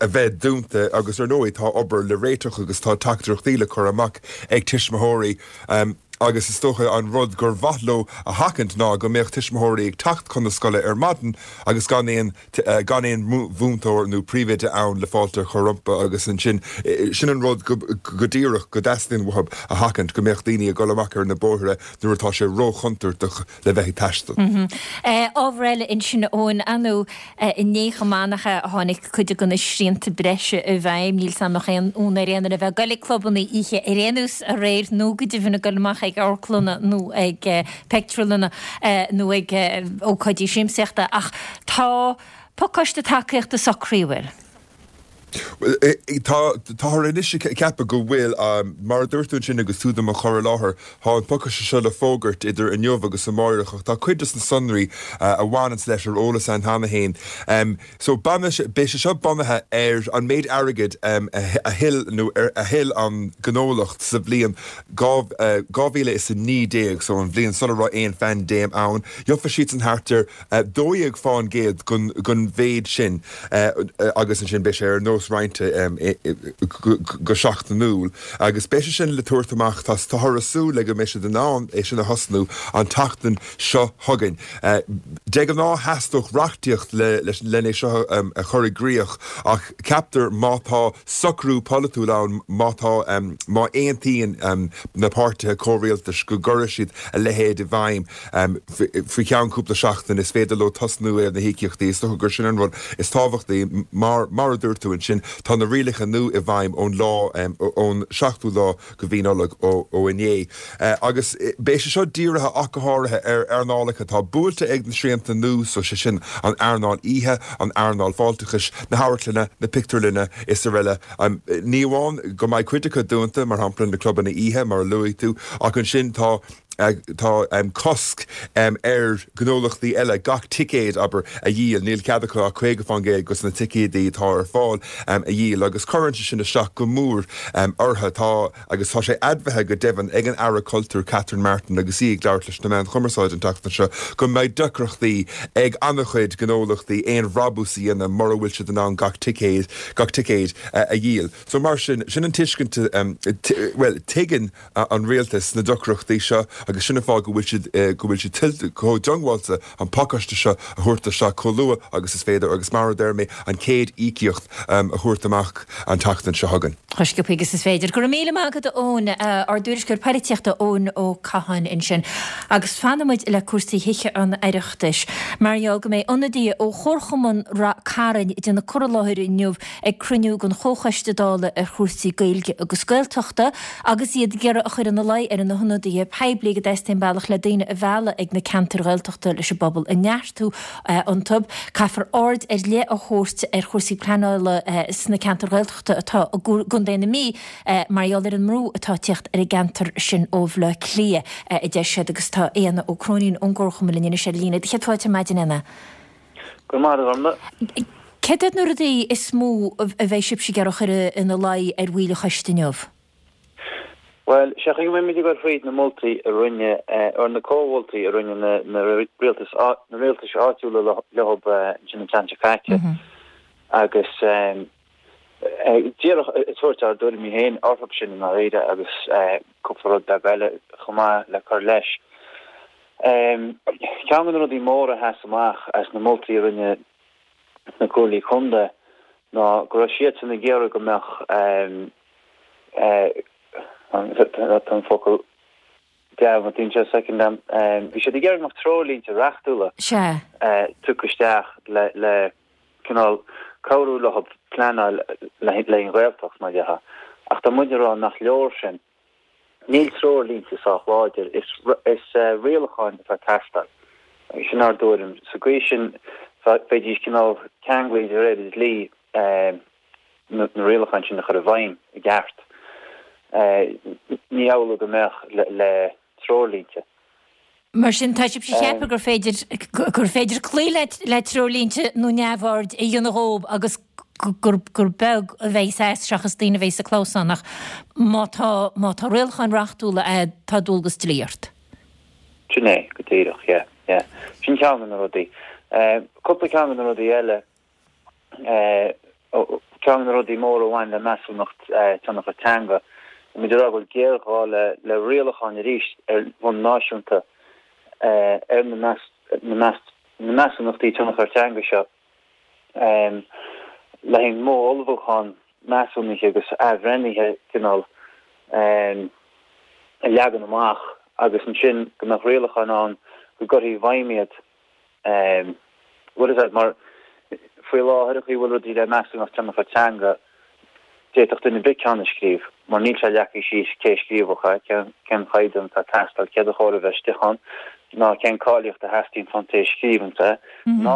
bheith dúnta agus ar ndóigh tá obair le réiteach agus tá teachtaireachtaí le cur amach ag tuismitheoirí agus is dócha an rud gur mhaith leo a sheachaint ná go mbeadh tuismitheoirí ag teacht chun na scoile ar maidin agus gan aon gan aon mhúinteoir nó príomhoide ann le fáilte a chur rompu agus ansin sin an rud go go díreach go dteastaíonn uathu a sheachaint, go mbeadh daoine ag dul amach ar na bóithre nuair atá sé róchontúirteach le bheith ag taisteal. Ábhar eile ansin Eoin, ar ndóigh inné chomh maith nach ea a tháinig cuid de na srianta breise i bhfeidhm. Níl 's a'm an mbeadh aon fhonn ar aon duine a bheith ag goil ag clubanna oíche ar aon nós aréir nó go deimhin ag goil amach ag amharclanna nó ag pictiúrlanna nó ag ócáidí siamsaíochta ach tá pacáiste tacaíochta socraithe, an bhfuil? Tá, táthar anois ag ceapadh go bhfuil, mar a dúirt tú ansin agus tú do mo chur i láthair, tá an pacáiste seo le fógairt idir inniu agus amáireach ach tá cuid de na sonraí a bhaineanns leis ar eolas againn cheana féin. So beidh sé seo bunaithe ar an méid airgid a thuill nó a thuill an gnólacht sa bhliain 2019, so an bhliain sula raibh aon phaindéim ann. Gheobhaidh siadsan thart ar 12% den mhéid sin agus ansin beidh sé ar nós roinnte go seachtainiúil agus beidh sé sin le tabhairt amach, táthar ag súil le go mbeidh siad in ann é sin a thosnú an tseachtain seo chugainn. De ghnáth theastódh reachtaíocht len é seo a chur i gcrích ach ceaptar má tá socrú polaitiúil ann, má tá, má aontaíonn na páirtithe comhrialtais go gcuirfidh siad a leithéid i bhfeidhm faoi cheann cúpla seachtain, is féidir leo tosnú ar na híocaíochtaí. Is dócha gur sin an rud is tábhachtaí. Mar, mar a dúirt tú ansin, tá na rialacha nua i bhfeidhm ón lá, ón seachtú lá de mhí Nollag, ó inné. Agus beidh sé seo dírithe ach go háirithe ar earnálacha atá buailte ag na srianta nua, so sé sin an earnáil oíche, an earnáil fáilteachais, na hamharclanna, na pictiúrlanna is araile. Ní amháin go mbeidh cuid acu dúnta, mar shampla na clubanna oíche, mar a luaigh tú, ach ansin tá. tá cosc ar ghnólachtaí eile gach ticéad, abair, a dhíol. Níl cead acu ach 50% de na ticéadaí atá ar fáil a dhíol agus cuireann sé sin isteach go mór orthu. Tá, agus tá sé admhaithe go deimhin ag an Aire Cultúir Catherine Martin agus í ag labhairt leis na meáin chumarsáide an tseachtain seo, go mbeidh deacrachtaí ag an-chuid gnólachtaí aon bhrabús a dhéanamh mura bhfuil siad in ann gach ticéad, gach ticéad a dhíol. So mar sin, sin an tuiscint, bhuel, tuigeann an rialtas na deacrachtaí seo agus sin an fáth go bhfuil siad, go bhfuil siad chomh diongbháilte an pacáiste seo a thabhairt isteach chomh luath agus is féidir agus mar a deir mé, an chéad íocaíocht a thabhairt amach an tseachtain seo chugainn. Chomh sciobtha agus is féidir. Go raibh míle maith agat a Eoin, ár dtuairisceoir poilitíochta Eoin Ó Catháin ansin. Agus fanfaidh muid le cúrsaí Thithe an Oireachtais mar gheall go mbeidh ionadaithe ó Chomharchumann Rath Cairn ag déanamh cur i láthair inniu ag cruinniú den Chomhchoiste Dála ar chúrsaí Gaeilge agus Gaeltachta agus iad ag iarraidh a chur ina luí ar na hionadaithe poiblí go dteastaíonn bealach le daoine a mhealladh ag na ceantair Ghaeltachta leis an bpobal a neartú iontu. Caithfear aird ar leith a thabhairt ar chúrsaí pleanála sna ceantair Ghaeltachta atá i gContae na Mí mar gheall ar an mbrú atá ag tíocht ar an gceantar sin ó Bhaile Átha Cliath, a deir siad agus tá Éanna Ó Cróinín ón gComharchumann linn anois ar líne. Céad fáilte ar maidin, Éanna. Go raibh maith agat. Céard iad na rudaí is mó a bheidh sibhse ag iarraidh a chur ina luí ar bhaill an choiste inniu? Bhuel, sé an chaoi go mbeidh muid ag dul fríd na moltaí a rinne, or na comh-mholtaí a rinne na rialtais, na rialtais áitiúla leo ansin an tseachtain seo caite agus díreach ag tabhairt ár dtuairimí féin orthu sin i ndáiríre agus cúpla rud beag eile chomh maith le cur leis. Ceann de na rudaí móra a sheas amach as na moltaí a rinne na Comhairlí Contae ná go raibh siadsan ag iarraidh go mbeadh tá an focal dearmadta anseo soicind agam, bhí siad ag iarraidh go mbeadh treoirlínte reachtúla tugtha isteach le cineál cabhrú leo pleanáil le haghaidh an Ghaeltacht, mar dhea. Ach tá muid ag rá nach leor sin. Níl treoirlínte sách láidir, is rialacháin atá ag teastáil. Sin ár dtuairim. Sa gcaoi sin bheidís cineál ceanglaithe de réir an dlí na rialacháin sin a chur i bhfeidhm i gceart. Ní amhlaidh go mbeadh le treoirlínte. Mar sin, tá sibhse ag ceapadh gur féidir, gur féidir cloí le, le treoirlínte nó neamhaird a dhéanamh dhób agus gur, gur beag a bheidh as seachas daoine a bheidh sa clamhsán ach má tá, má tá rialacháin reachtúla a'd, tá dualgas dlí ort. Sin é, go díreach, yeah, yeah. Sin ceann de na rudaí. Cúpla ceann de na rudaí eile. Ceann de na rudaí móra a bhain le measúnacht tionchair teanga, tá muid ag rá go bhfuil géarghá le rialacháin arís ar bhonn náisiúnta ar na measúnachtaí tionchair teanga seo le haghaidh modh ullmhúcháin measúnaithe agus athbhreithnithe cineál a leagan amach agus ansin go mbeadh rialacháin ann go gcuirfí i bhfeidhm iad. Bhfuil fhios agat, mar faoi láthair an chaoi a bhfuil rudaí le measúnacht tionchair teanga, d'fhéadfadh duine ar bith ceann a scríobh, mar níl sé leagtha síos cé a scríobhfadh é, cén chaighdeán atá ag teastáil, céard a chóir a bheith istigh ann, ná cén cáilíocht a theastaíonn ón té a scríobhanns é, ná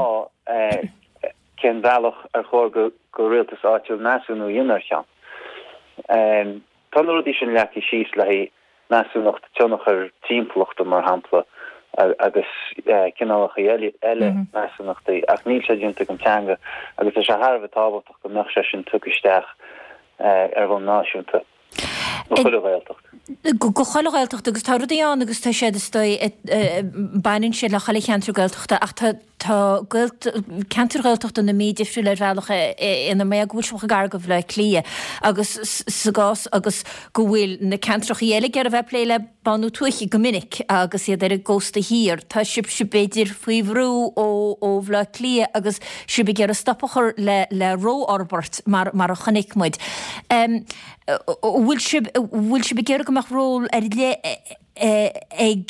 cén bealach ar chóir go rialtas áitiúil measúnú a dhéanamh ar cheann. Tá na rudaí sin leagtha síos le haghaidh measúnacht tionchair timpeallachta, mar shampla, agus cineálacha eile measúnachtaí, ach níl sé déanta don teanga agus tá sé thar a bheith tábhachtach go mbeadh sé sin tugtha isteach ar bhonn náisiúnta do chuile Ghaeltacht. Do chuile Ghaeltacht agus tá rudaí ann agus tá siad is dóigh, baineann siad le chuile cheantar Gaeltachta ach tá Tá ceantair Ghaeltachta na Mí difriúil ar bhealach ina mbeadh go bhfuil siad chomh gar do Bhaile Átha Cliath agus sa gcás agus go bhfuil na ceantrachaí eile ag iarraidh a bheith ag plé le bánú tuaithe go minic agus iad ar an gcósta thiar. Tá sibhse b'fhéidir faoi bhrú ó Bhaile Átha Cliath agus sibh ag iarraidh stop a chur le le rófhorbairt mar mar a chonaic muid. An bhfuil sibh bhfuil sibh ag iarraidh go mbeadh ról ar leith ag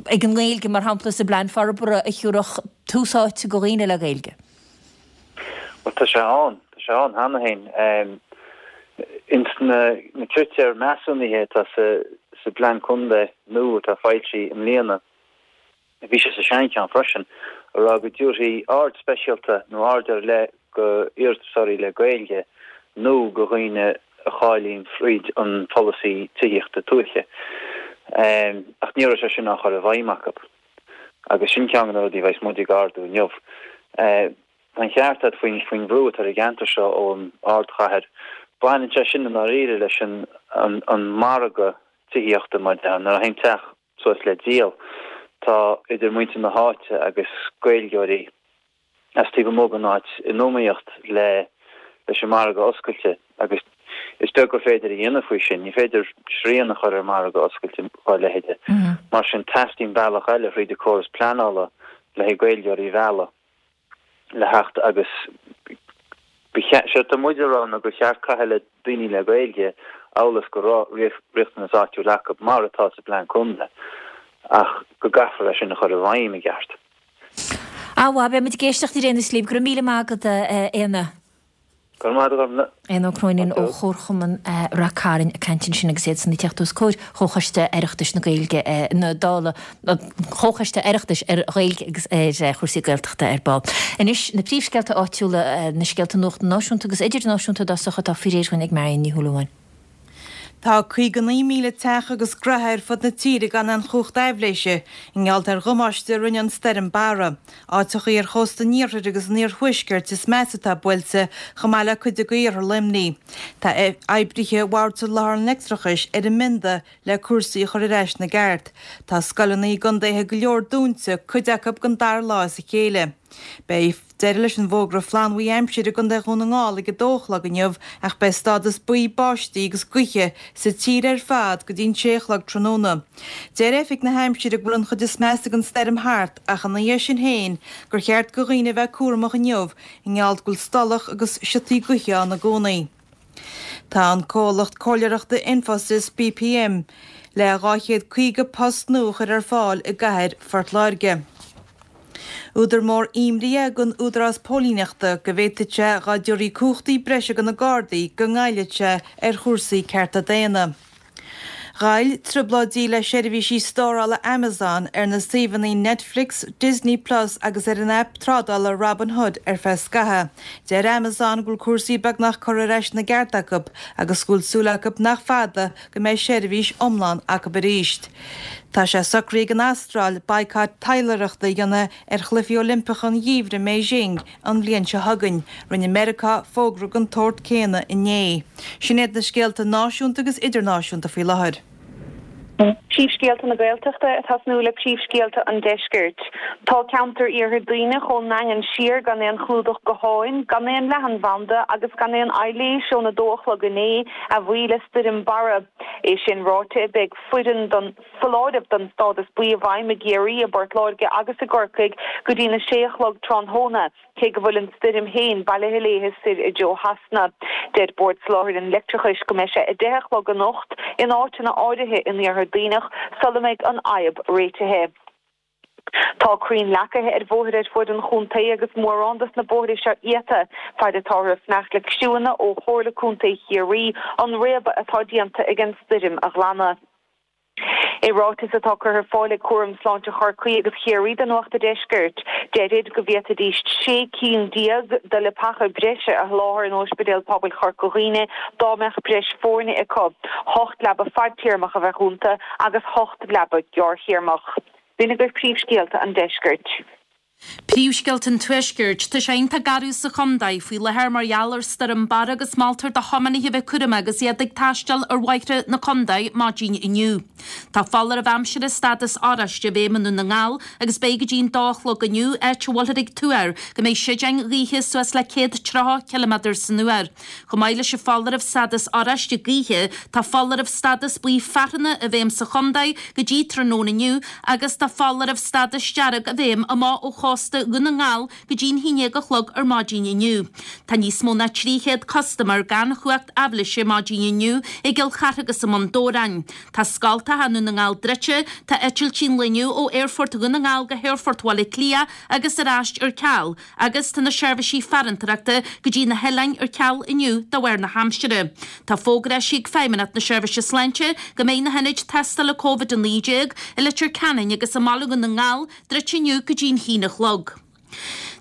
ag an nGaeilge, mar shampla, sa bplean forbartha a thiúrfadh tús áite go dhaoine le Gaeilge? Bhuel, tá sé ann, tá sé ann cheana féin. Ins na critéir measúnaithe atá sa sa bplean contae nua atá foilsithe i mbliana, Bhí sé sa seancheann freisin, a rá go dtabharfaí aird speisialta nó aird ar leith go iarratasóirí le Gaeilge nó go dhaoine a cháilíonn fríd an pholasaí tithíochta tuaithe. Ach ní raibh sé sin á chur i bhfeidhm acu. Agus sin ceann de na rudaí a bheas muid ag ardú inniu. Tá an ceart agat faoin faoin bhrú atá ar an gceantar seo ón ardchathair. Baineann sé sin i ndáiríre leis an an margadh tithíochta mar a déarfá. Nuair a théann teach suas le díol, tá idir muintir na háite agus Gaeilgeoirí as taobh amuigh den áit in iomaíocht le leis an margadh oscailte agus is beag gur féidir a dhéanamh faoi sin. Ní féidir srian a chur ar mhargadh oscailte dá leithéide. Mar sin teastaíonn bealach eile thríd an córas pleanála le haghaidh Gaeilgeoirí a mhealladh le theacht agus ba cheart, séard tá muid a rá ná gur cheart caitheamh le daoine le Gaeilge amhail is go raibh riachtanas áitiúil acu mar atá sa bplean contae ach go gcaithfear é sin a chur i bhfeidhm i gceart. Á mhaith, beidh muid ag éisteacht ar aon nós libh. Go raibh míle maith agat, a Éanna. Go raibh maith agat, a Ghormfhlaith. Éanna Ó Cróinín ó Chomharchumann Rath Cairn ag caint ansin agus iadsan ag teacht os comhair Chomhchoiste Oireachtais na Gaeilge na Dála, Comhchoiste Oireachtais ar Ghaeilge agus ar chúrsaí Gaeltachta ar ball. Anois na príomhscéalta áitiúla, na scéalta nuachta náisiúnta agus idirnáisiúnta i dtosach atá faoi réir dhúinn ag Marion Ní Shúilleabháin. Tá 59,000 teach agus graithe ar fud na tíre gan aon chumhacht aibhléise i ngeall ar dhamáiste a rinne an stoirm Barra. Áiteachaí ar chósta an iarthair agus an iarthuaiscirt is measa atá buailte, chomh maith le cuid de iarthar Luimnigh. Tá oibrithe Bhord Soláthair an Leictreachais ar an mbionda le cúrsaí a chur ar ais ina gceart. Tá scoileanna i gcontaetha go leor dúnta, cuid acu don dara lá as a chéile. Beidh deireadh leis an bhfógra flannbhuí aimsire i gContae Dhún na nGall ag 2 a chlog inniu ach beidh stádas buí báistí agus gaoithe sa tír ar fad go dtí an 6 a chlog tráthnóna. Deir Oifig na hAimsire go bhfuil an chuid is measa den stoirm thart ach ina dhiaidh sin féin gur cheart go dhaoine a bheith cúramach inniu i ngeall go bhfuil stolladh agus siotaí gaoithe ann i gcónaí. Tá an comhlacht comhairleoireachta Infosys BPM le 250 post nua a chur ar fáil i gcathair Phort Láirge. Údar mór imní é don Údarás Póilíneachta go bhféadfadh sé dhá dtabharfaí cumhachtaí breise do na Gardaí go ngoillfeadh sé ar chúrsaí cearta daonna. Ghoill trioblóidí le seirbhísí stórála Amazon ar na suíomhanna Netflix, Disney Plus agus ar an aip trádála Robinhood ar feadh scaithimh. Deir Amazon go bhfuil cúrsaí beagnach curtha ar ais ina gceart acu agus go bhfuil súil acu nach fada go mbeidh seirbhís iomlán acu arís. Tá sé socraithe ag an Astráil baghcat taidhleoireachta a dhéanamh ar Chluichí Oilimpeacha an Gheimhridh i mBeijing an bhliain seo chugainn. Rinne Meiriceá fógra den tsórt céanna inné. Sin iad na scéalta náisiúnta agus idirnáisiúnta faoi láthair. Príomhscéalta na Gaeltachta ag tosnú le príomhscéalta an Deiscirt. Tá ceantar Iarthar Duibhneach ón nDaingean siar gan aon chlúdach gutháin, gan aon leathanbhanda agus gan aon aibhléis ón 2 a chlog inné, a bhuí le Stoirm Barra. É sin ráite, beidh foireann don. foláireamh don stádas buí i bhfeidhm i gCiarraí, i bPort Láirge agus i gCorcaigh go dtína sé a chlog tráthnóna, cé go bhfuil an stoirm féin bailithe léithe soir i dtreo Shasana. Deir Bord Soláthair an Leictreachais go mbeidh sé 10 a chlog anocht in áiteanna áirithe in Iarthar Duibhneach sula mbeidh an fhadhb réitithe. Tá crainn leacaithe ar bhóithre ar fuaid an chontae agus mórán dos na bóithre seo iata, faid atáthar ag fanacht le criúnna ó Chomhairle Contae Chiarraí an réabadh atá déanta ag an stoirm a ghlanadh. I ráiteas atá curtha ar fáil ag Cúram Sláinte Chorcaí agus Chiarraí do Nuacht a' Deiscirt, deirid go bhféadfaidís 16 cinn de leapacha breise a sholáthar in Ospidéal Pobail Chorca Dhuibhne dá mbeadh breis foirne acu. Hocht leaba fadtéarmach a bheadh iontu agus hocht leaba gearrthéarmach. B'in agaibh príomhscéalta an deiscirt. Príomhscéalta an Tuaiscirt. Tá sé iontach garbh sa chontae faoi láthair mar gheall ar Stoirm Barra agus moltar do thiománaithe a bheith cúramach agus iad ag taisteal ar bhóithre na contae maidin inniu. Tá foláireamh aimsire stádas oráiste i bhfeidhm i nDún na nGall agus beidh go dtí an dó a chlog inniu, áit a bhfuilthear ag tuar go mbeidh séideáin ghaoithe suas le 130 ciliméadar san uair. Chomh maith leis an foláireamh stádas oráiste gaoithe, tá foláireamh stádas buí fearthanna i bhfeidhm sa chontae go dtí tráthnóna inniu agus tá foláireamh stádas dearg i bhfeidhm amach ó chósta Dhún na nGall go dtí an haon déag a chlog ar maidin inniu. Tá níos mó ná 300 custaiméir gan chumhacht aibhléise maidin inniu i gCill Chartha agus i mBun Dobhráin. Tá scoltacha i nDún na nGall druidte, tá eitiltí an lae inniu ó Aerfort Dhún na nGall go hAerfort Bhaile Átha Cliath agus ar ais ar ceal. Agus tá na seirbhísí farantóireachta go dtí na hoileáin ar ceal inniu de bharr na haimsire. Tá fógra eisithe ag Feidhmeannacht na Seirbhíse Sláinte go mbeidh na hionaid tástála Covid-19 i Leitir Ceanainn agus i mBaile Dhún na nGall druidte inniu go dtí an haon a chlog.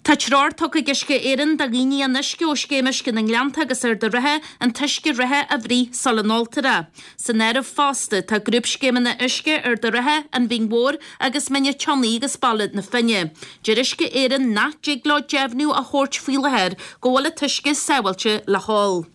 Tá treoir tugtha ag Uisce Éireann do dhaoine an uisce ó Scéim Uisce na nGleannta agus Arda Ríthe an t-uisce reatha a bhruith sula n-óltar é. San áireamh fosta tá grúpscéimeanna uisce Arda Ríthe, An Bhinn Mhór agus Mín an tSionnaigh agus Baile na Finne. Deir Uisce Éireann nach dtig leo deimhniú a thabhairt faoi láthair go bhfuil an t-uisce sábháilte le hól.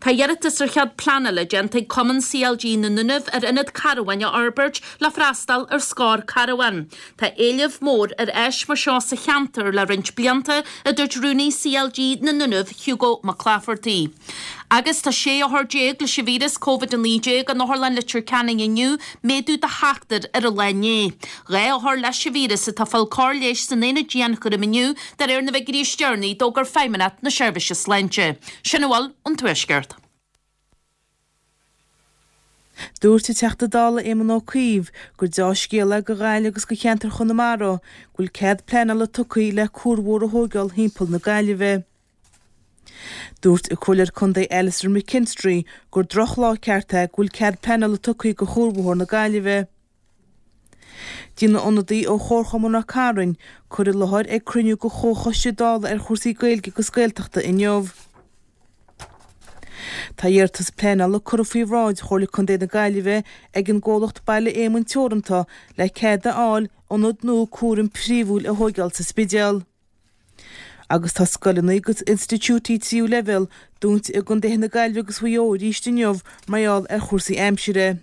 Tá iarratas ar chead pleanála déanta ag Cumann CLG na nDúnaibh ar ionad carbháin a fhorbairt le freastal ar scór carbhán. Tá éileamh mór ar áis mar seo sa cheantar le roinnt blianta, a dúirt Rúnaí CLG na nDúnaibh, Hugo Mac Laifeartaigh. Agus tá 16 othar leis an víreas Covid-19 in Otharlann Leitir Ceanainn inniu, méadú de sheachtar ar an lá inné. 2 othar leis an víreas atá ag fáil cóir leighis san aonad dianchúraim inniu, de réir na bhfigiúirí is deireanaí a d'fhógair Feidhmeannacht na Seirbhíse Sláinte. Sin a bhfuil ón Tuaisceart. Dúirt an Teachta Dála Éamon Ó Cuív gur deá-scéal é do Ghaillimh agus do cheantar Chonamara go bhfuil cead pleanála tugtha le cuarbhóthar a thóigeáil thimpeall na Gaillimhe. Dúirt an Comhairleoir Contae Alastair McKinstry gur drochlá ceart é go bhfuil cead pleanála tugtha do chuarbhóthar na Gaillimhe. Déanfaidh ionadaí ó Chomharchumann Ráth Cairn cur i láthair ag cruinniú de Chomhchoiste Dála ar chúrsaí Gaeilge agus Gaeltachta inniu. Tá iarratas pleanála curtha faoi bhráid Chomhairle Contae na Gaillimhe ag an gcomhlacht Baile Éamoinn Teoranta le cead a fháil ionad nua cúraim phríomhúil a thóigeáil sa Spidéal. Agus tá scoileanna agus institiúidí tríú leibhéal dúnta i gcontaetha na Gaillimhe agus Mhaigh Eo arís inniu mar gheall ar chúrsaí aimsire.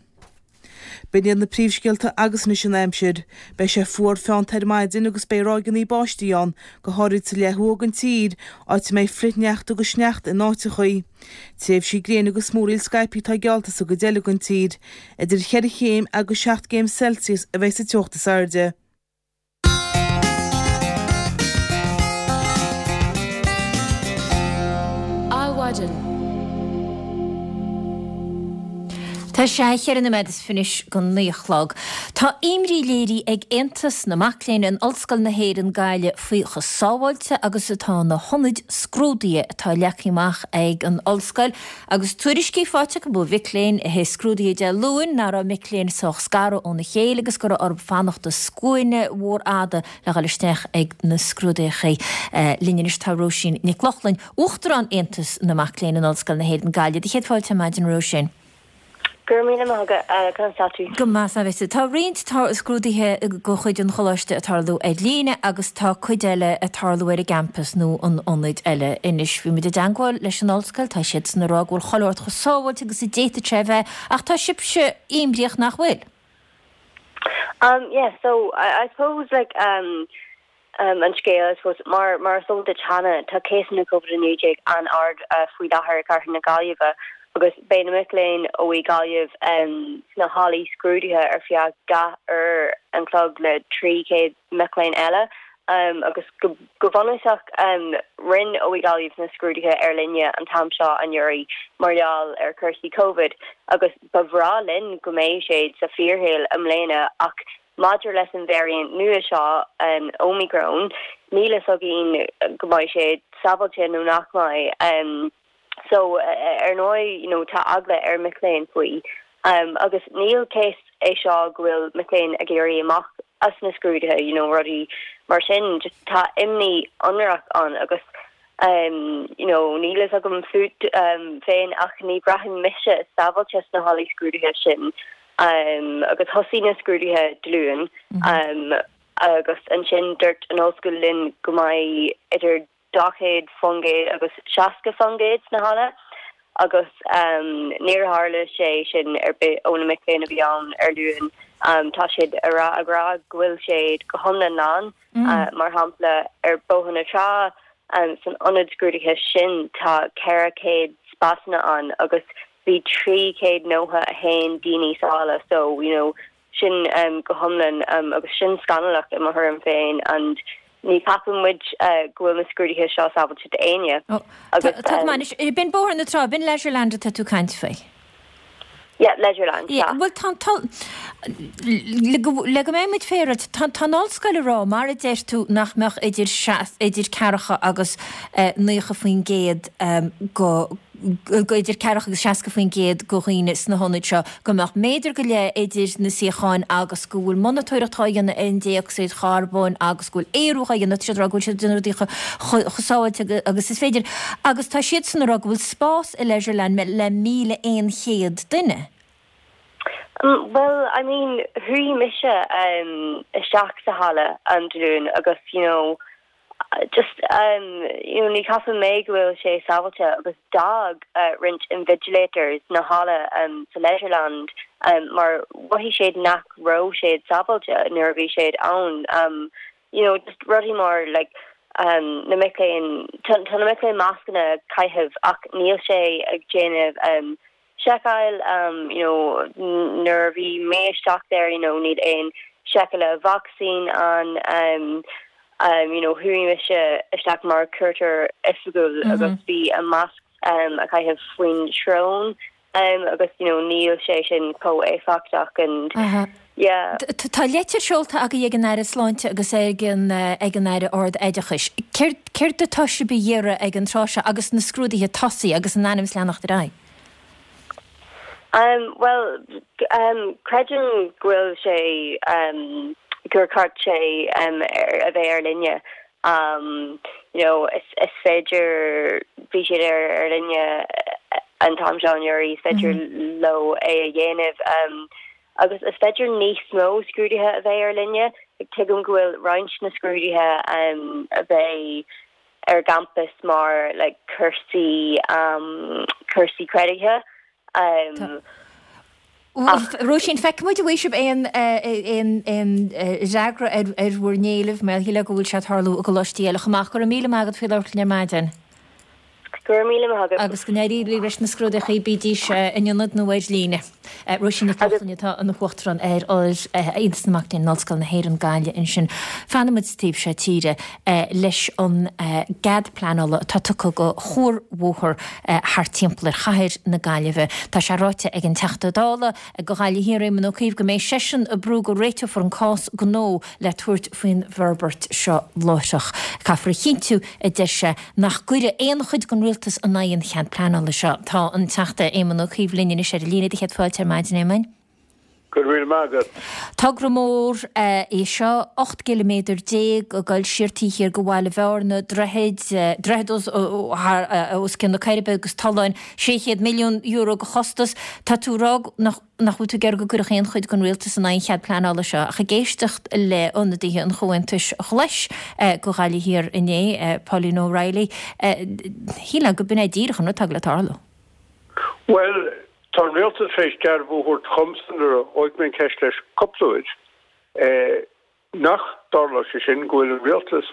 B'in iad na príomhscéalta agus anois an aimsir. Beidh sé fuar feannta ar maidin agus beidh ráigeanna báistí ann, go háirid sa leath thuaidh den tír, áit a mbeidh flichshneachta agus sneachta in áiteachaí. Tréimhsí gréine agus múraíl scaipthe atá geallta sa gcuid eile den tír. Idir cheithre chéim agus seacht gcéim Celsius a bheidh sa teocht is airde. Adhmhaidin. Tá sé cheithre nóiméad is fiche go naoi a chlog. Tá imní léirithe ag Aontas na Mac Léinn in Ollscoil na hÉireann, Gaillimh faoi chomh sábháilte agus atá na hionaid scrúdaithe atá leagtha amach ag an ollscoil Agus tuairiscí faighte acu ó mhic léinn a shuigh scrúduithe Dé Luain nach raibh mic léinn sách scartha óna chéile agus go raibh orthu fanacht i scuaine mhór fhada le dhul isteach ag na scrúduithe. Linn anois tá Róisín Nic Lochlainn, Uachtarán Aontas na Mac Léinn in Ollscoil na hÉireann, Gaillimh. Do chéad fáilte ar maidin, a Róisín. Go raibh míle maith agat, conas tá tú? Go maith, sea. Tá roinnt scrúduithe de chuid an Choláiste ag tarlú ar líne agus tá cuid eile ag tarlú ar an gcampas nó in ionaid eile. Anois, bhí muid i dteangmháil leis an ollscoil, tá siadsan ag rá go bhfuil chuile shórt chomh sábháilte agus a d'fhéadfadh sé a bheith, ach tá sibhse imníoch nach bhfuil? Um, yeah, so I, I suppose like um, an scéal, I suppose, mar mar is eol duit cheana, tá cásanna Covid-19 an-ard faoi láthair i gcathair na Gaillimhe agus beidh na mic léinn OÉ Gaillimh sna hallaí scrúduithe ar feadh 2 uair an chloig le 300 mic léinn eile agus go go bunúsach rinne OÉ Gaillimh na scrúduithe ar líne an t-am seo anuraidh mar gheall ar chúrsaí Covid agus ba bhreá linn go mbeadh siad sa fíorshaol i mbliana ach Maidir leis an variant nua seo, an Omicron, níl fhios againn go mbeidh sé sábháilte nó nach mbeidh. So, ar ndóigh, you know, tá eagla ar mic léinn faoi. Agus níl cás é seo go bhfuil mic léinn ag éirí amach as na scrúduithe, you know, rudaí mar sin. Just tá imní ionrach ann agus, you know, níl fhios agam fút féin ach ní bhraitheann mise sábháilte sna hallaí scrúduithe sin. Agus thosaigh na scrúduithe Dé Luain agus ansin dúirt an ollscoil linn go mbeidh idir 40% agus 60% sna halla agus níor tharla sé sin ar bith ó na mic léinn a bhí ann ar Luan. Tá siad ag rá ag rá go bhfuil siad go hiomlán lán. Mar shampla ar Bhóthar na Trá san ionad scrúduithe sin tá 400 spásanna ann agus bhí 391 daoine sa halla so you know sin go hiomlán agus sin scannalach i mo thuairim féin and ní cheapann muid go bhfuil na scrúduithe seo sábháilte d'éinne agus Tá go maith anois, b'in Bóthar na Trá, b'in Leisureland atá tú ag caint faoi? Yeah, Leisureland, sea. Bhuel tá an t-, le go, le go mbeidh muid féaráilte, tá, tá an ollscoil ag rá, mar a deir tú, nach mbeadh idir, idir ceathracha agus 90% go. Idir ceathracha agus 60% de dhaoine sna hionaid seo, go mbeadh méadar go leith idir na suíocháin agus go bhfuil monatóireacht á dhéanamh ar an dé-ocsaíd charbóin agus go bhfuil aerú á dhéanamh, tá siad ag rá go bhfuil siad ag déanamh rudaí chomh sábháilte agus is féidir. Agus tá siadsan ag rá go bhfuil spás i Leisureland le 1,100 duine. Bhuel, I mean, chuaigh mise isteach sa halla Dé Luain agus, you know, just you know ní cheapann mé go bhfuil sé sábháilte agus d'fhág roinnt invigilators na halla sa Leisureland mar mhothaigh siad nach raibh siad sábháilte nuair a bhí siad ann you know just rudaí mar like na mic léinn tá na mic léinn mascanna ag caitheamh ach níl sé ag déanamh seiceáil you know nuair a bhí mé isteach there you know níl aon seiceáil vacsaín ann um you know chuaigh mise isteach mar cuairteoir oifigiúil agus bhí a masc um a caitheamh faoin srón um agus you know níl sé sin chomh éifeachtach and yeah. Tá leitir seolta agaibh ag an Aire Sláinte agus ag an ag an Aire Ard-Oideachais. Céard céard atá sibh a iarraidh ag an tráth seo agus na scrúduithe tosaithe agus in ainm is leanacht ar aghaidh? Um bhuel um creidim go bhfuil sé um gur ceart sé um ar a bheith ar líne. Um you know is is féidir bhí siad ar ar líne an t-am seo anuraidh is féidir leo é a dhéanamh. Um agus is féidir níos mó scrúduithe a bheith ar líne. Tuigim go bhfuil roinnt na scrúduithe a bheidh ar an gcampas mar like cúrsaí cúrsaí creidiúnaithe ach. Róisín, feicfidh muid an bhfaighidh sibh aon aon aon fhreagra ar ar bhur n-éilimh mar shílfeá go bhfuil sé ag tarlú i gcoláistí eile chomh maith. Go raibh míle maith agat faoi labhairt linn ar maidin. Go raibh míle maith agat. Agus go n-éirí libh leis na scrúduithe, bídís in ionad nó ar líne. Róisín Nic Lochlainn atá ina hUachtarán ar Aontas na Mac Léinn in Ollscoil na hÉireann, Gaillimh ansin. Fanfaidh muid sa taobh seo tíre leis an gcead pleanála atá tugtha do chuarbhóthar thart timpeall ar chathair na Gaillimhe. Tá sé ráite ag an Teachta Dála do Ghaillimh Thiar, Éamon Ó Cuív, go mbeidh seisean ag brú go réiteofar an cás gnó le tabhairt faoin bhforbairt seo láithreach. Caithfear a chinntiú, a deir sé, nach gcuirfidh aon chuid den rialtas in aghaidh an chead pleanála seo. Tá an Teachta Éamon Ó Cuív linn anois ar an líne. Céad fáilte ar maidin, a Éamoin. Go raibh míle maith agat. Togra mór é seo, 18 gciliméadar ag dul siar taobh thiar de Bhaile Bhearna, droichid, droichead os cionn na Coiribe agus tolláin, €600 milliún de chostas. Tá tú ag rá nach. nach bhfuil tú ag iarraidh go gcuirfeadh aon chuid den rialtas in aghaidh an chead pleanála seo, ach ag éisteacht le ionadaithe an Chomhaontais Ghlais do Ghaillimh Thiar inné, Pauline O'Reilly, shílfeá go b'in é díreach an rud atá ag dul le tarlú. Bhuel, tá an rialtas tar éis dearbhú a thabhairt dhomsa nuair a dhóigh mé an cheist leis cúpla uair, Nach dtarlóidh sé sin, go bhfuil an rialtas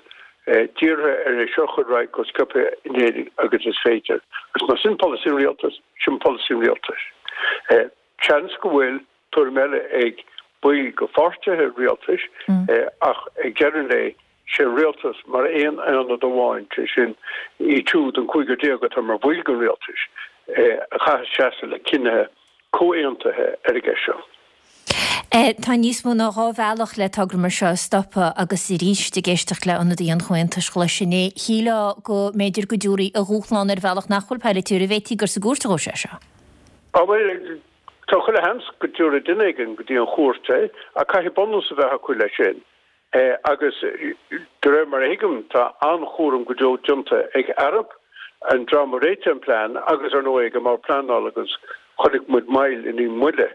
dírithe ar é seo a chur ar aghaidh chomh sciobtha in Éirinn agus is féidir. Agus más sin polasaí an rialtais, sin polasaí an rialtais. Seans go bhfuil tuairim eile ag baill de pháirtithe rialtais ach ag deireadh an lae, sé an rialtas mar aon aonad amháin, sé sin iad siúd, an cúigear atá mar bhaill den rialtais, a chaithfeas seasamh le cinnithe comhaontaithe ar an gceist seo. Tá níos mó ná 2 bhealach le togra mar seo a stopadh agus arís ag éisteacht le ionadaí an Chomhaontais Ghlais inné, shílfeá go mb'fhéidir go dtabharfaí a dhúshlán ar bhealach nach bhfuil polaitiúil, an bhféadfaí gur sa gcúirt a ghabhfaidh sé seo? Á bhuel, tá chuile sheans go dtabharfaidh duine éigin go dtí an chúirt é ach caithfidh bunús a bheith acu leis sin. Agus de réir mar a thuigim, tá an-chúram go deo déanta ag Arup, an dream a réitigh an plean, agus ar ndóigh ag an mBord Pleanála agus chonaic muid moill i ndiaidh moille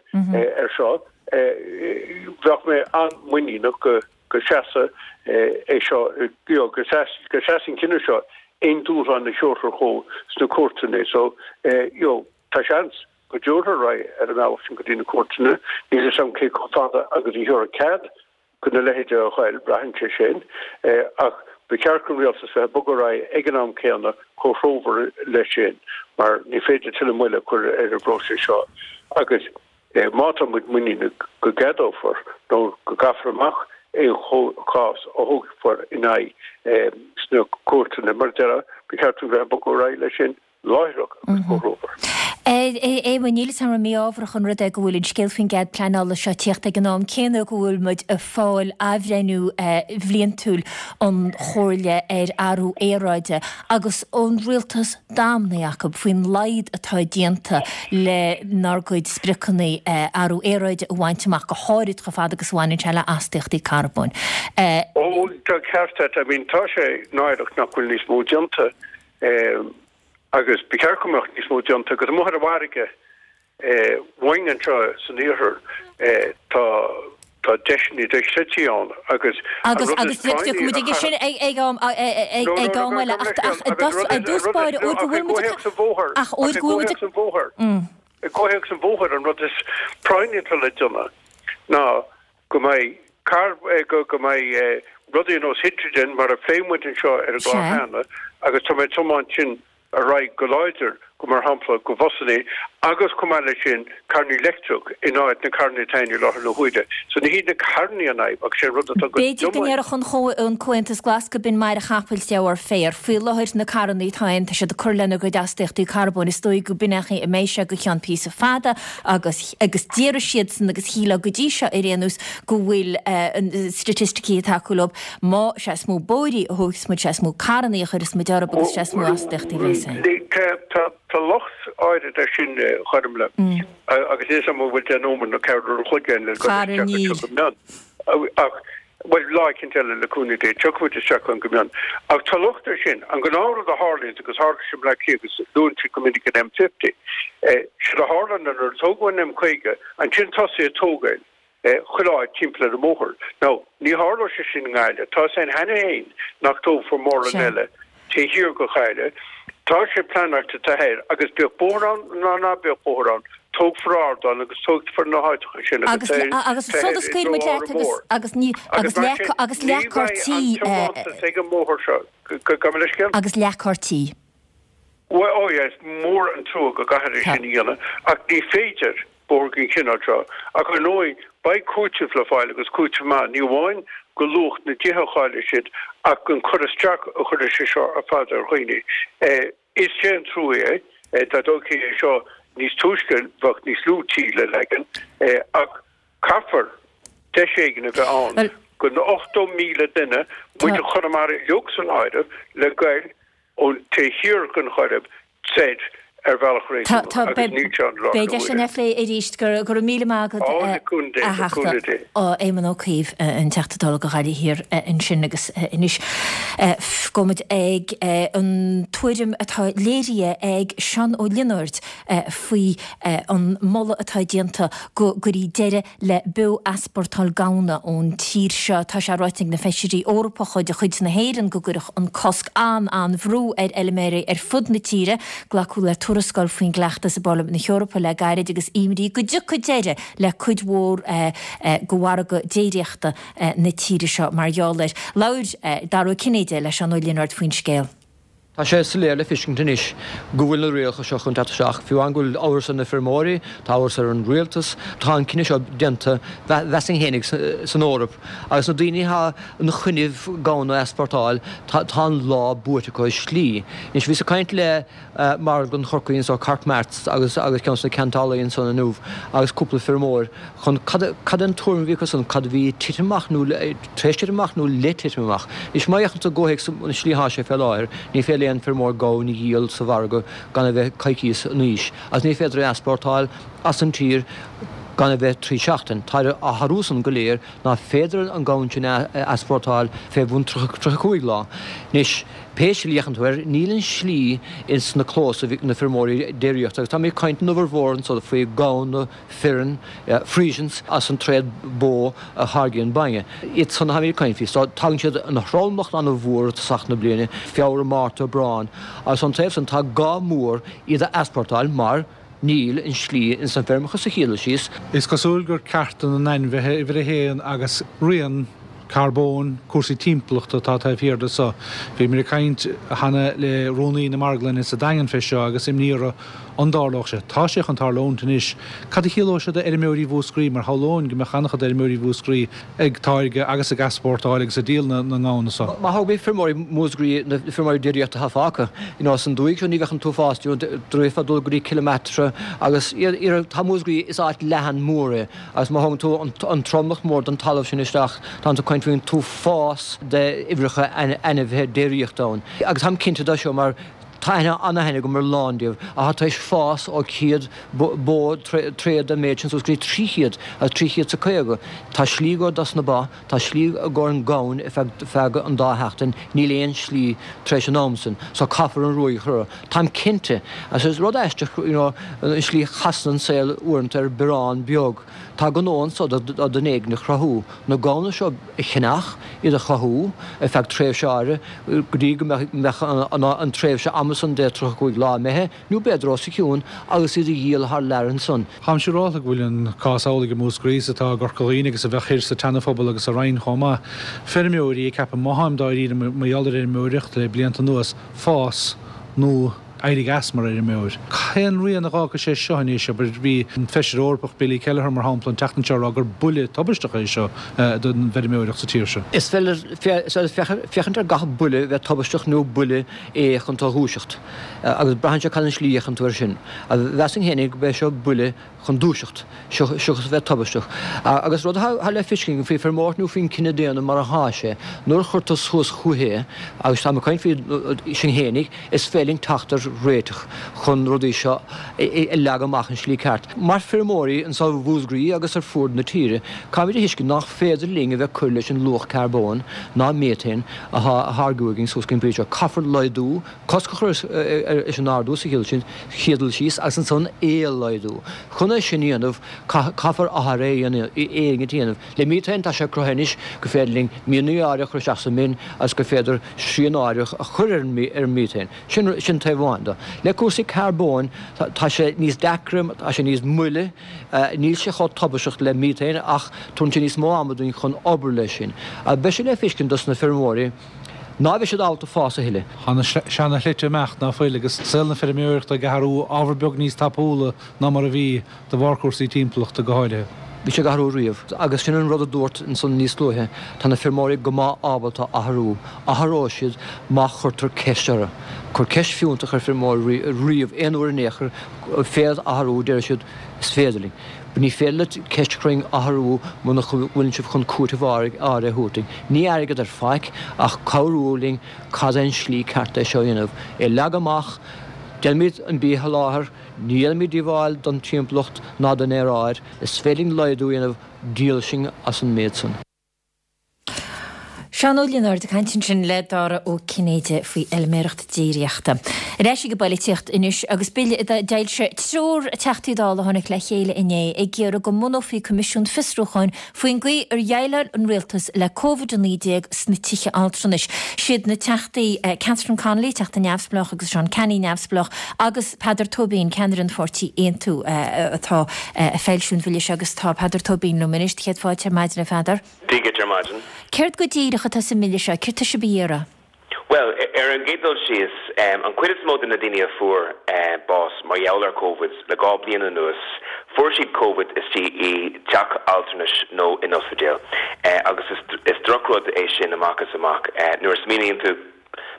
ar seo. Bheadh mé an-mhuiníneach go go seasfaidh é seo, go seasfaidh an cinneadh seo aon dúshlán a thabharfar chucu sna cúirteanna. So, you know, tá seans go dtabharfar ar aghaidh ar an mbealach sin go dtí na cúirteanna. Níl a fhios agam cé chomh fada agus a thabharfar cead do na leithéide a ghoil, braitheann sé sin, ach ba cheart don rialtas bheith ag bogadh ar aghaidh ag an am céanna chomh threomhar leis sin, mar ní féidir tuilleadh moille a chur ar an bpróiseas seo agus má tá muid muiníneach go gceadófar nó go gcaithfear amach aon chás a thógfar in aghaidh sna cúirteanna, mar a déarfá, ba cheart dúinn bheith ag bogadh ar aghaidh leis sin. Láithreach agus go romhar. A Éamoinn, níl 'fhios a'm an mí-ámharach an rud é go bhfuil an scéal faoin gcead pleanála seo ag tíocht ag an am céanna go bhfuil muid ag fáil athbhreithniú bhliantúil an Chomhairle ar Athrú Aeráide agus an rialtas damnaithe acu faoin laghad atá déanta lenár gcuid spriocanna athrú aeráide a bhaint amach, go háirid chomh fada agus a bhaineann sé le astaíochtaí carbóin. Ó, tá ceart agat. I mean, tá sé náireach nach bhfuil níos mó déanta. Agus ba cheart go mbeadh níos mó déanta agus amuigh ar an bhfarraige uainn anseo san iarthar tá tá deiseanna dochreidte ann agus an Agus rud is agus práinní tiocfaidh muid aige sin ag ag am ag ag am eile ach ach i dtús báire óir go bhfuil muid ach óir go bhfuil muid I gcomhthéacs an bhóthair an rud is práinní atá le déanamh ná go mbeidh carr, go mbeidh rudaí ar nós hidrigin, mar a phléigh muid anseo ar an gclár cheana, agus tá mé ag tiomáint sin ar aghaidh go láidir, go mar shampla go bhusannaí, agus chomh maith leis sin carrannaí leictreach in áit na carrannaí atá ann i láthair na huaire. So ní hiad na carrannaí an fhadhb ach sé an rud atá go B'fhéidir go ndéarfadh an Comhaontas Glas go b'in maire chapaill de bharr féir. Faoi láthair na carrannaí atá ann tá siad ag cur lena gcuid astaíochtaí carbóin, is dóigh go b'in é an chaoi a mbeidh sé go ceann píosa fada agus agus déarfaidh siadsan agus shílfeá go dtí seo ar aon nós go bhfuil staitisticí ag tacú leo, má, sé is mó bóithrí a thógfas muid, sé is mó carrannaí a chuirfeas muid orthu agus sé is mó astaíochtaí a bheas ann. Tá locht áirid air sin, a Ghormfhlaith, agus níl 'fhios a'm an bhfuil 10 nóiméad nó ceathrú an chloig againn le dul isteach anseo go mion. Ach, bhuel, lá eicínt eile le cúnamh Dé, tiocfaidh muid isteach ann go mion. Ach tá locht air sin. An gnáthrud a tharlaíonns, agus tharla sé i mBleá Cliath agus luann siad go minic an M50, séard a tharla ná nuair a tógadh an M50, ansin tosaíodh ag tógáil chuile áit timpeall ar an mbóthar. Now, ní tharlóidh sé sin i nGaillimh. Tá 'fhios a'inn cheana féin nach dtógfar mórán eile taobh thiar de Ghaillimh. Tá sé pleanáilte taobh thoir agus bíodh bóthar ann ná ná bíodh bóthar ann, tógfar ardán agus tógfar na háiteacha sin agus agus sula scaoil muid leat agus agus ní agus mar sin agus ní bheidh an tiomantas ag an mbóthar seo. Gabh mo leithscéal? Agus leathchártaí. Bhuel, oh yeah, is mór an trua go gcaithfear é sin a dhéanamh ach ní féidir bóthar den chineál seo. Ach ar ndóigh, beidh cúiteamh le fáil agus cúiteamh maith, ní amháin go luach na dtithe a chaillfidh siad ach an cur isteach a chuirfidh sé seo ar fad ar dhaoine. Is é an trua é, dá dtógfaí é seo níos túisce bheadh níos lú tí le leagan ach caithfear deis éigin a bheith ann go na 80,000 duine, muintir Chonamara uilig san áireamh, le goil ón taobh thiar den Choirib soir ar bhealach réasúnach agus níl sé ann i láthair na Beidh deis huaire. againn é a phlé arís. Go raibh míle maith agat, Á, le cúnamh Dé, a le Theachta. cúnamh Dé. Éamon Ó Cuív, an Teachta Dála do Ghaillimh Thiar ansin agus anois gabhfaidh muid ag an tuairim atá léirithe ag Seán Ó Lionáird faoi an moladh atá déanta go gcuirfí deireadh le beo-easpórtáil gamhna ón tír seo. Tá sé ráite ag na Feisirí Eorpacha de chuid na hÉireann go gcuirfeadh an cosc an-an-bhrú ar fheilméaraí ar fud na tíre. Glacadh le tuarascáil faoin gcleachtas i bParlaimint na hEorpa le gairid agus imní go dtiocfaidh deireadh le cuid mhór de mhargadh déiríochta na tíre seo mar gheall air. Labhair Dara Ó Cinnéide le Seán Ó Lionáird faoin scéal. Tá sé soiléir le feiscint anois go bhfuil na rialacha seo chun teacht isteach. Fiú amháin go bhfuil amhras ar na feirmeoirí, tá amhras ar an rialtas, tá an cinneadh seo déanta, mheasfainn fhéinig, san Eoraip. Agus na daoine atá ina choinnibh gamhna a easpórtáil, tá an lá buaite acu i slí. Anois, bhíos ag caint le Marglann Chorcaí anso, Cork Marts, agus agus ceann de na ceantálaí ansan inniu agus cúpla feirmeoir chun cad cad é an tuairim a bhí acu san, cad a bhí ag titim amach nó tar éis titim amach nó le titim amach. Anois má fhéachann tú i gcomhthéacs an slí atá sé fé láthair, ní féidir le aon feirmeoir gamhain a dhíol sa mhargadh gan a bheith coicíos in aois, agus ní féidir é a easpórtáil as an tír gan a bheith trí seachtain. Tá á tharlú san go léir ná féidir an gamhain sin a easpórtáil fé bhun 35 lá. Anois, pé slí a fhéachann tú air, níl an slí ins na clóis ag na feirmeoirí déiríochta, agus táimid ag caint in uimhir mhór anso faoi gamhna, fireann, Friesians, as an tréad bó a tháirgíonn bainne. Iad san atáimid ag caint faoi. So, tagann siad ina thromlach an-mhór i dtosach na bliana, Feabhra, Márta, Aibreán, agus ón taobh san tá gá mór iad a easpórtáil mar níl an slí ins na feirmeacha sa chéad dul síos. Is cosúil gur cearta na n-ainmhithe uimhir a haon agus rian. Carbóin, cúrsaí timpeallachta atá taobh thiar de so. Bhíomar ag caint cheana le Rúnaí na Marglainne sa Daingean fé seo agus imní orthu an dtarlódh sé. Tá sé chun tarlúint anois. Cad a chiallóidh sé d'fheirmeoirí Mhúscraí mar shamhlóinn go mbeadh an-chuid d'fheirmeoirí Mhúscraí ag táirgeadh agus ag easpórtáil agus ag díol na ngamhna so. Má thógfaí feirmeoirí Mhúscraí, na feirmeoirí déiríochta atá fágtha, you know, san dúiche seo ní bheadh an t-uafás, you know, d'fhéadfá dul go dtí Cill Meatra agus iarraidh, tá Múscraí, is áit leathan mór é. Agus má thógann tú an tromlach mór den talamh sin isteach, tánn tú ag caint faoin t-uafás d'uimhreacha ainmhithe déiríochta ann. Agus táim cinnte de seo mar tá aithne, an-aithne agam ar a lán díobh, atá tar éis fás ó 100 bó tréad den méid sin suas go dtí 300 agus 300 's a 50. Tá slí i gcomhair dos na ba, tá slí i gcomhair an gamhain ar feadh, feadh an dá sheachtain, níl aon slí tar éis an am sin. So caithfear an ruaig a chur orthu. Táim cinnte, agus is rud aisteach, you know, an slí a chasann an saol uaireanta ar biorán beag. Tá gnó anso do dhuine éigin a chruthú, na gamhna seo a cheannach, iad a chothú ar feadh tréimhse áirithe, go dtí go mbeadh an tréimhse ama san de 35 lá imithe, nó b'fhéidir os a chionn, agus iad a dhíol thar lear ansan. Táim siúrálta go bhfuil an cás amhlaidh i Múscraí is atá i gCorca Dhuibhne agus a bheadh thoir sa tSeana-Phobal agus sa Rinn chomh maith. Feirmeoirí ag ceapadh, má tháim dáiríre mar gheall ar fheirmeoireacht le blianta anuas, fás nó éirigh as mar fheirmeoir. Cén rian a dh'fhágfaidh sé seo anois? Abair, bhí an Feisire Eorpach Billy Kelleher, mar shampla, an tseachtain seo ag rá gur buille tubaisteach é seo don bhfeirmeoireacht sa tír seo. Is féidir féachaint ar gach buille bheith tubaisteach nó buille é chun tú a dhúiseacht. Agus braitheann sé cad an slí a fhéachann tú air sin. Mheasfainn féinig go b'é seo buille chun dúiseacht, seachas a bheith tubaisteach. Agus rud atá le feiscint faoi feirmeoireacht nó faoin cine daonna mar athá sé, nuair a chuir tú suas chucu é, agus táim ag caint faoi sinn fhéinig, is féidir linn teacht ar réiteach chun rudaí seo a leagadh amach an slí ceart. Mar feirmeoirí anso i Mhúscraí agus ar fuaid na tíre, caithfimid a thuiscint nach féidir linn a bheith cur leis an luach carbóin ná méatain athá á tháirgiú againn suas go dtí an pointe seo. Caithfear laghdú cosc a chur leis an ardú sa chéad dul síos agus ansan é a laghdú. Chun é sin a dhéanamh, caithfear athrú éigin a dhéanamh. Le miotain, tá sé cruthaithe anois gur féidir linn mianaigh áirithe a chur isteach sa mhin agus gur féidir srian áirithe a chur ar an miotain. Sin, sin taobh amháin de. Le cúrsaí carbóin, tá sé níos deacra, tá sé níos moille, níl sé chomh tubaisteach le miotain ach tugann sé níos mó ama dúinn chun obair leis sin. Beidh sé le feiscint dos na feirmeoirí. Ná beidh siad ábalta fás a thuilleadh. Tá na seana-shlite imeacht, ná fuil, agus saol na feirmeoireachta ag athrú ábhar beag níos tapúla ná mar a bhí, de bharr cúrsaí timpeallachta go háirithe. Bhí sé ag athrú riamh, agus sin an rud a dúrt ansan níos luaithe, tá na feirmeoirí go maith ábalta athrú. Athróidh siad má chuirtear ceist orthu. Cuir ceist fiúntach ar feirmeoir riamh, aon uair in aon chor, féad athrú, déarfaidh siad, is féidir linn. Ní féidir leat ceist a chur orainn athrú muna bhfuileann sibh chun cúiteamh áirithe a thabhairt dúinn. Ní airgead ar faic ach cabhrú linn cad é an slí ceart é seo a dhéanamh. É leagadh amach, déanaimid an bia a sholáthar, ní dhéanaimid díobháil don timpeallacht ná don aeráid, is féidir linn laghdú a dhéanamh, díol sinn as an méid san. Seán Ó Lionáird ag caint ansin le Dara Ó Cinnéide faoi fheilméaracht déiríochta. Ar ais ag an bpoilitíocht anois agus bille a d'fhoilsigh triúr Teachtaí Dála a tháinig le chéile inné ag iarraidh go mbunófaí coimisiún fiosrúcháin faoin gcaoi ar dhéileáil an rialtas le Covid-19 sna tithe altranais. Siad na Teachtaí Catherine Connolly, Teachta Neamhspleách agus Seán Canney, Neamhspleách, agus Peadar Tóibín, ceannaire an pháirtí Aontú, atá ag foilsiú an bhille seo agus tá Peadar Tóibín liom anois. Céad fáilte ar maidin, a Pheadair. Dia dhuit ar maidin. Céard go díreach atá sa mbille seo? Céard tá sibh a iarraidh? Bhuel, ar an gcéad dul síos, an chuid is mó de na daoine a fuair bás mar gheall ar Covid le 2 bliain anuas, fuair siad Covid istigh i dteach altranais nó in ospidéal. Agus is drochrud é sin amach is amach. Nuair a smaoiníonn tú,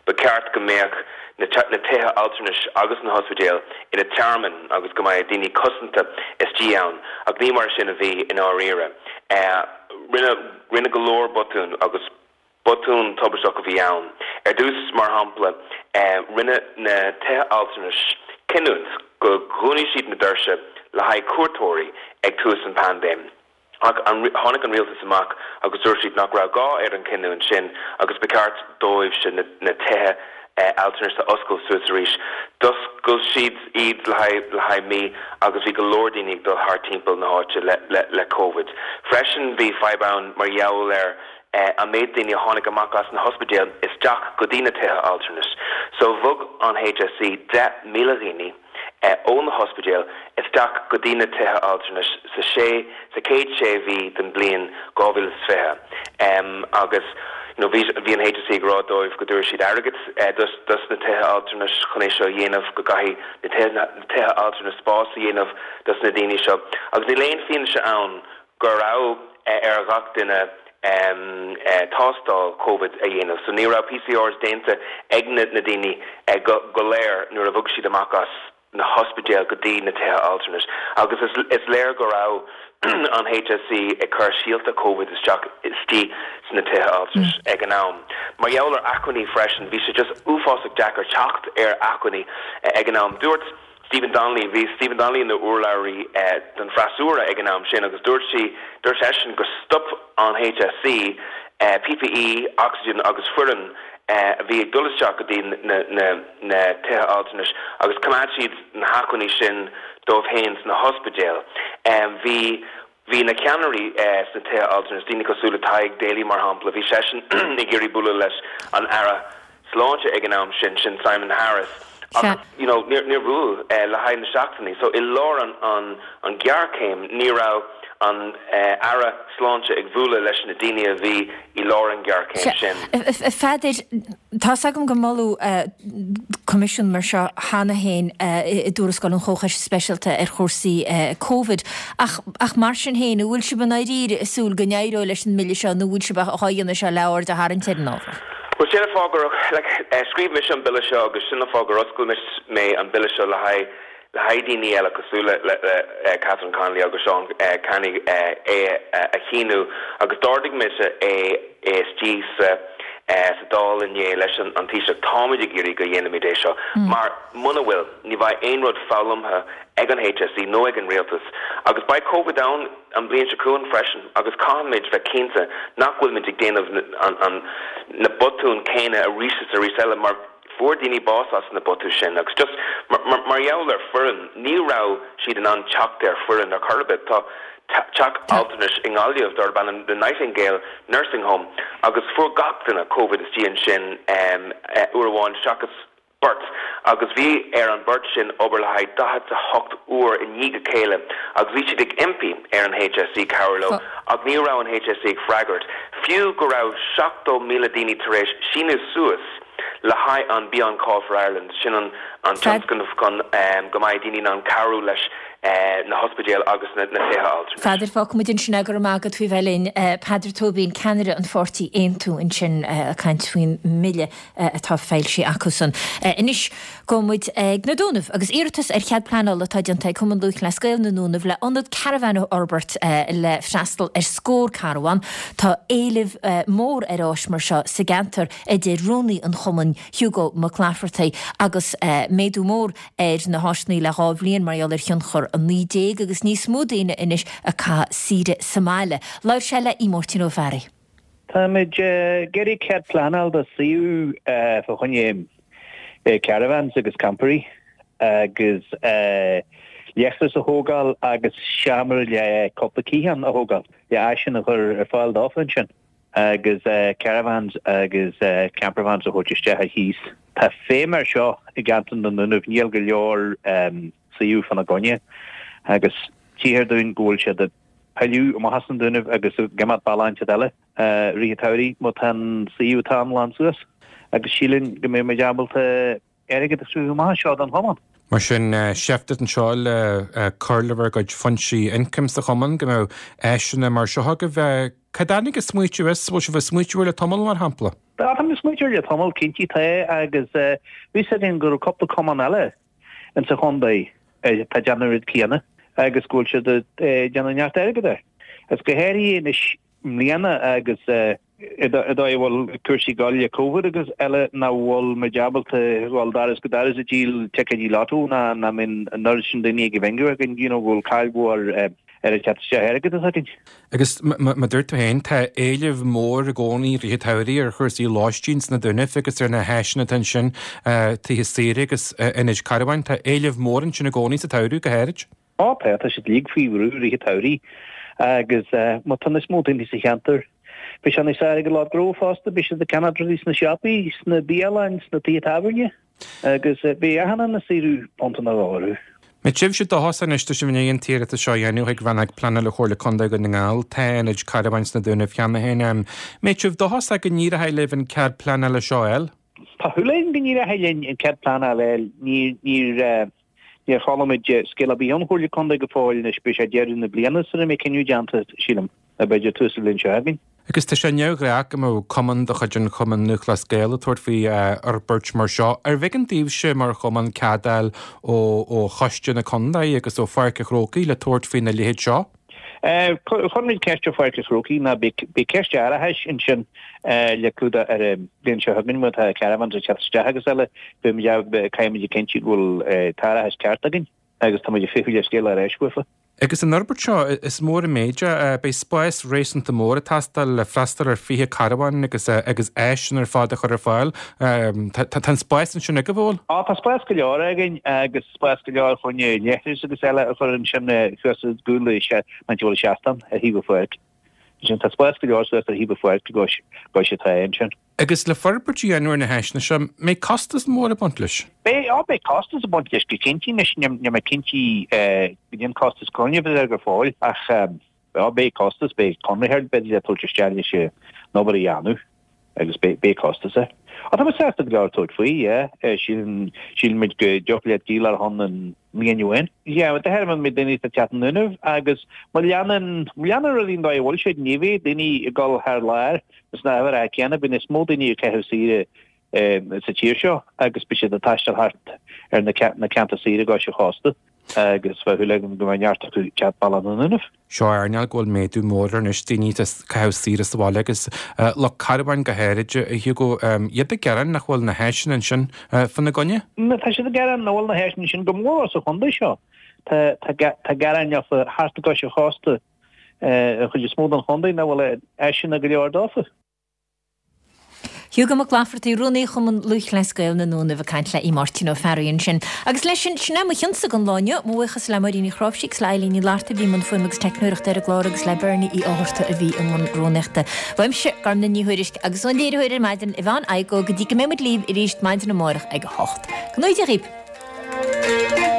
Ba cheart go mbeadh na tithe altranais agus na hospidéil ina tearmainn agus go mbeadh daoine cosanta istigh ann, ach ní mar sin a bhí i ndáiríre. Rinneadh go leor botún agus botún tubaisteach a bhí ann. Ar dtús, mar shampla, rinne na tithe altranais cinniúint go dhúnfaidh siad na doirse le haghaidh cuairteoirí ag tús an paindéim. Ach tháinig an rialtas amach agus dúirt siad nach raibh gá ar an chinniúint sin agus ba cheart dóibhse na tithe altranais a oscailt suas arís. D'oscail siad iad le haghaidh mí agus bhí go leor daoine ag dul thart timpeall na háite le Covid. Freisin bhí fadhb ann mar gheall ar an méid daoine a tháinig amach as na hospidéil isteach go dtí na tithe altranais. So bhog an HSE 10,000 dhaoine. ó na hospidéil isteach go dtí na tithe altranais sa sé sa chéad sé mhí den bliain 2020 agus you know bhí bhí an HSE ag rá dóibh go dtabharfaidh siad airgead dos dos na tithe altranais chun é seo a dhéanamh go gcaithfidh na tithe na tithe altranais spás a dhéanamh dos na daoine seo agus níl aon fianaise ann go raibh ar ghach duine tástáil Covid a dhéanamh. So ní raibh PCRs déanta ag na daoine go léir nuair a bhog siad amach as na hospidéil go dtí na tithe altranais. Agus is léir go raibh an HSE ag cur síolta Covid isteach istigh sna tithe altranais ag an am. Mar gheall ar acmhainní freisin, bhí sé just uafásach deacair teacht ar acmhainní ag an am. Dúirt. Stephen Donnelly, Bhí Stephen Donnelly ina urlabhraí don freasúra ag an am sin agus dúirt sí, dúirt seisean gur stop an HSE PPE, ocsaigin agus foireann a bhí ag dul isteach go dtí na na tithe altranais agus choimeád siad na hacmhainní sin dóibh féin sna hospidéil. Bhí Bhí na ceannairí sna tithe altranais, daoine cosúil le Tadhg Daly mar shampla, bhí seisean ag iarraidh bualadh leis an Aire Sláinte ag an am sin, sin Simon Harris, ach you know níor níor bhuail le haghaidh na seachtainí. So i lár an an an ghéarchéim ní raibh an Aire Sláinte ag bualadh leis na daoine a bhí i lár an ghéarchéim sin. A Pheadair, tá's agam gur moladh coimisiún mar seo cheana féin i dtuarascáil an Chomhchoiste Speisialta ar chúrsaí Covid ach ach mar sin féin, an bhfuil sibh i ndáiríre ag súil go n-éireoidh leis an mbille seo nó an bhfuil sibh á dhéanamh seo le aird a tharraingt ar an ábhar? Bhuel, sin an fáth gur, like, scríobh mise an bille seo agus sin an fáth gur oscail mé an bille seo le haghaidh le haghaidh daoine eile cosúil le le Catherine Connolly agus Seán Canney é a shíniú agus d'ardaigh mise é istigh sa sa Dáil inné leis an Taoiseach. Táimid ag iarraidh go dhéanfaimid é seo mar muna bhfuil, ní bheidh aon rud foghlamtha ag an HSE nó ag an Rialtas agus beidh Covid ann an bhliain seo chugainn freisin agus caithfimid bheith cinnte nach bhfuilimid ag déanamh an na botúin céanna arís is arís eile mar Fuair daoine bás as na botúin sin agus just mar gheall ar foireann, ní raibh siad in ann teacht ar foireann ar chor ar bith. Tá teach altranais i nGaillimh darb ainm The Nightingale Nursing Home agus fuair gach duine Covid istigh ansin uair amháin seachas beirt agus bhí ar an beirt sin obair le haghaidh 48 uair i ndiaidh a chéile agus bhí siad ag impí ar an HSE cabhrú leo ach ní raibh an HSE ag freagairt fiú go raibh 70,000 daoine tar éis síniú suas le haghaidh an Be On Call for Ireland, sin an tionscnamh chun go mbeidh daoine in ann cabhrú leis na hospidéil agus na tithe altranais. Pheadair, fágfaidh muid ansin é, go raibh maith agat faoi bheith linn. Peadar Tóibín, ceannaire an pháirtí Aontú ansin ag caint faoin mbille atá foilsithe acusan. Anois gabhfaidh muid ag na Dúnaibh agus iarratas ar chead pleanála atá déanta ag Cumann Lúthchleas Gael na nDúnaibh le ionad caravan a fhorbairt le freastal ar scór carbhán. Tá éileamh mór ar áis mar seo sa gceantar. a deir rúnaí an chumainn, Hugo Mac Laifeartaigh, agus méadú mór ar na háiseanna le 2 bhliain mar gheall ar thionchar 19 agus níos mó daoine anois ag caitheamh saoire sa mbaile. Labhair sé le Máirtín Ó Fearraigh. Táimid ag iarraidh cead pleanáil do suíomh fá choinne caravans agus campairí agus leithreas a thógáil agus seomra le cúpla cliathán a thógáil le áiseanna a chur ar fáil dófa ansin. agus caravans agus campervans a thabhairt isteach ar chíos. Tá feidhm air seo i gceantar na nDúnaibh, níl go leor suíomh fána gcoinne agus tchíthear dúinn go bhfuil siad ag pilleadh amach as na Dúnaibh agus ag imeacht bealach inteacht eile i rith an tsamhraidh má tá an suíomh atá ann lán suas agus sílim go mbeidh muid ábalta airgead a chruthú amach anseo don chumann. Mar sin, seift anseo le cur le bhur gcuid foinsí ioncaim sa chumann, go mbeadh áiseanna mar seo agaibh. Cá dtáinig an smaoitiú as? Bhfuil sibh ag smaoitiú air le tamall, mar shampla? Tá, táimid ag smaoitiú air le tamall, cinnte tá, agus bhí fhios againn go raibh cúpla cumann eile insa chontae atá ag déanamh an rud céanna agus go bhfuil siad ag déanamh neart airgid air. Agus go háirithe anois i mbliana agus an dóigh a bhfuil cúrsaí ag dul le Covid agus eile nach bhfuil muid ábalta dhul doras go doras ag díol ticéidí lotto ná nach mbíonn an oiread sin daoine ag bingo againn you know go bhfuil caill mhór ar an teacht isteach airgid atá againn. Agus mar dúirt tú féin, tá éileamh mór i gcónaí i rith an tsamhraidh ar chúrsaí lóistín sna Dúnaibh agus ar na háiseanna atá ansin, tithe saoire agus ionaid carbháin. Tá éileamh mór ansin i gcónaí sa tsamhradh go háirid. Á tá, tá siad uilig faoi bhrú i rith an tsamhraidh agus má tá níos mó daoine sa cheantar, beidh sé níos fearr ag an lucht gnó fosta, beidh siad ag ceannach rudaí sna siopaí, sna bialanna, sna tithe tábhairne agus beidh achan duine ag saothrú punt nó dhó orthu. Mbeidh sibhse dóchasach anois, tá sibh i ndiaidh an t-iarratas seo a dhéanamh chuig Rannóg Pleanála Chomhairle Contae Dhún na nGall, tá ionaid carbháin sna Dúnaibh cheana féin. Mbeidh sibh dóchasach go n-éireoidh libh an cead pleanála seo a fháil? Tá súil againn go n-éireoidh linn an cead pleanála a fháil. Níor níor chuala muid scéal ar bith ón Chomhairle Contae go fóill anois, beidh sé deireadh na bliana sara mbeidh cinneadh déanta, sílim, nó b'fhéidir tús na bliana seo chugainn. Agus tá sé neamhghnách go mbeadh cumann de chuid an Chumainn Lúthchleas Gael ag tabhairt faoi fhorbairt mar seo. Arbh éigean daoibhse mar chumann cead a fháil ó choiste na contae agus ó Pháirc an Chrócaigh le tabhairt faoina leithéid seo? Chuir muid ceist ar Pháirc an Chrócaigh ná beidh ceist árachais ansin le clúdach ar an bhliain seo chugainn má tá caravans ag teacht isteach agus eile, caithfidh muid a chinntiú go bhfuil t-árachas ceart againn agus tá muid ag feitheamh le scéal ar ais uafa. Agus an fhorbairt seo, is mór an méid é. Beidh spás réasúnta mór ag teastáil le freastal ar 20 carbhán agus agus áiseanna ar fad a chur ar fáil. Tá an spás ansin agaibh, an bhfuil? Á, tá spás go leor againn agus spás go leor chun leithris agus eile a chur ansin thuas i gcúl an áit a bhfuil an seastán ar thaobh an pháirc. Ansin tá spás go leor suas ar thaobh an pháirc i gcois atá ansin. Agus le forbairt a dhéanamh ar na háiseanna seo, mbeidh costas mór ag baint leis? Beidh, á beidh costas ag baint leis go cinnte. Anois níl mé cinnte goidé an costas cruinn a bheidh air go fóill ach á beidh costas, beidh conraitheoir b'fhéidir le tabhairt isteach leis an obair a dhéanamh agus beidh, beidh costas air. Á tá muid sásta go leor tabhairt faoi, yeah. Sílim, sílimid go dtiocfadh leat díol ar shon an mbliain amháin. Yeah, de thairbhe an méid daoine atá ag teacht 'na nDúnaibh agus má leanann, má leanann rudaí an dóigh a bhfuil siad, ní bheidh daoine ag dul thar lear Sna huimhreacha céanna, beidh níos mó daoine ag caitheamh saoire sa tír seo agus beidh siad ag taisteal thart ar na ceantair saoire i gcois an chósta agus bheadh súil agam go mbeidh neart acu ag teacht bealach na nDúnaibh. Seo earnáil go bhfuil méadú mór air anois, daoine ag caitheamh saoire sa bhaile agus lucht carbháin go háirid, a Hugo, iad ag gearán nach bhfuil na háiseanna ansin fána gcoinne. Tá siad ag gearán nach bhfuil na háiseanna ansin go mór sa chontae seo. Tá gearáin leofa thart i gcois an chósta. an chuid is mó den chontae nach bhfuil áiseanna go leor dófa. Hugo Mac Laifeartaigh, Rúnaí Chumann Lúthchleas Gael na nDúnaibh ag caint le Aodh Máirtín Ó Fearraigh ansin. Agus leis sin, sin é mo chionsa don lá inniu. Mo bhuíochas le Máirín Ní Chráimhsí agus le Eilín Ní Fhlatharta a bhí i mbun fuaime agus teicneoireachta ar an gclár agus le Bernie Uí Fhátharta a bhí i mbun rúnaíochta. Uaimse, Gormlaith Ní Thuairisg, agus ón léiritheoir ar maidin, Yvonne Igoe, go dtí go mbeidh muid libh arís maidin amárach ag a hocht. Go ngnóthaí Dia dhaoibh!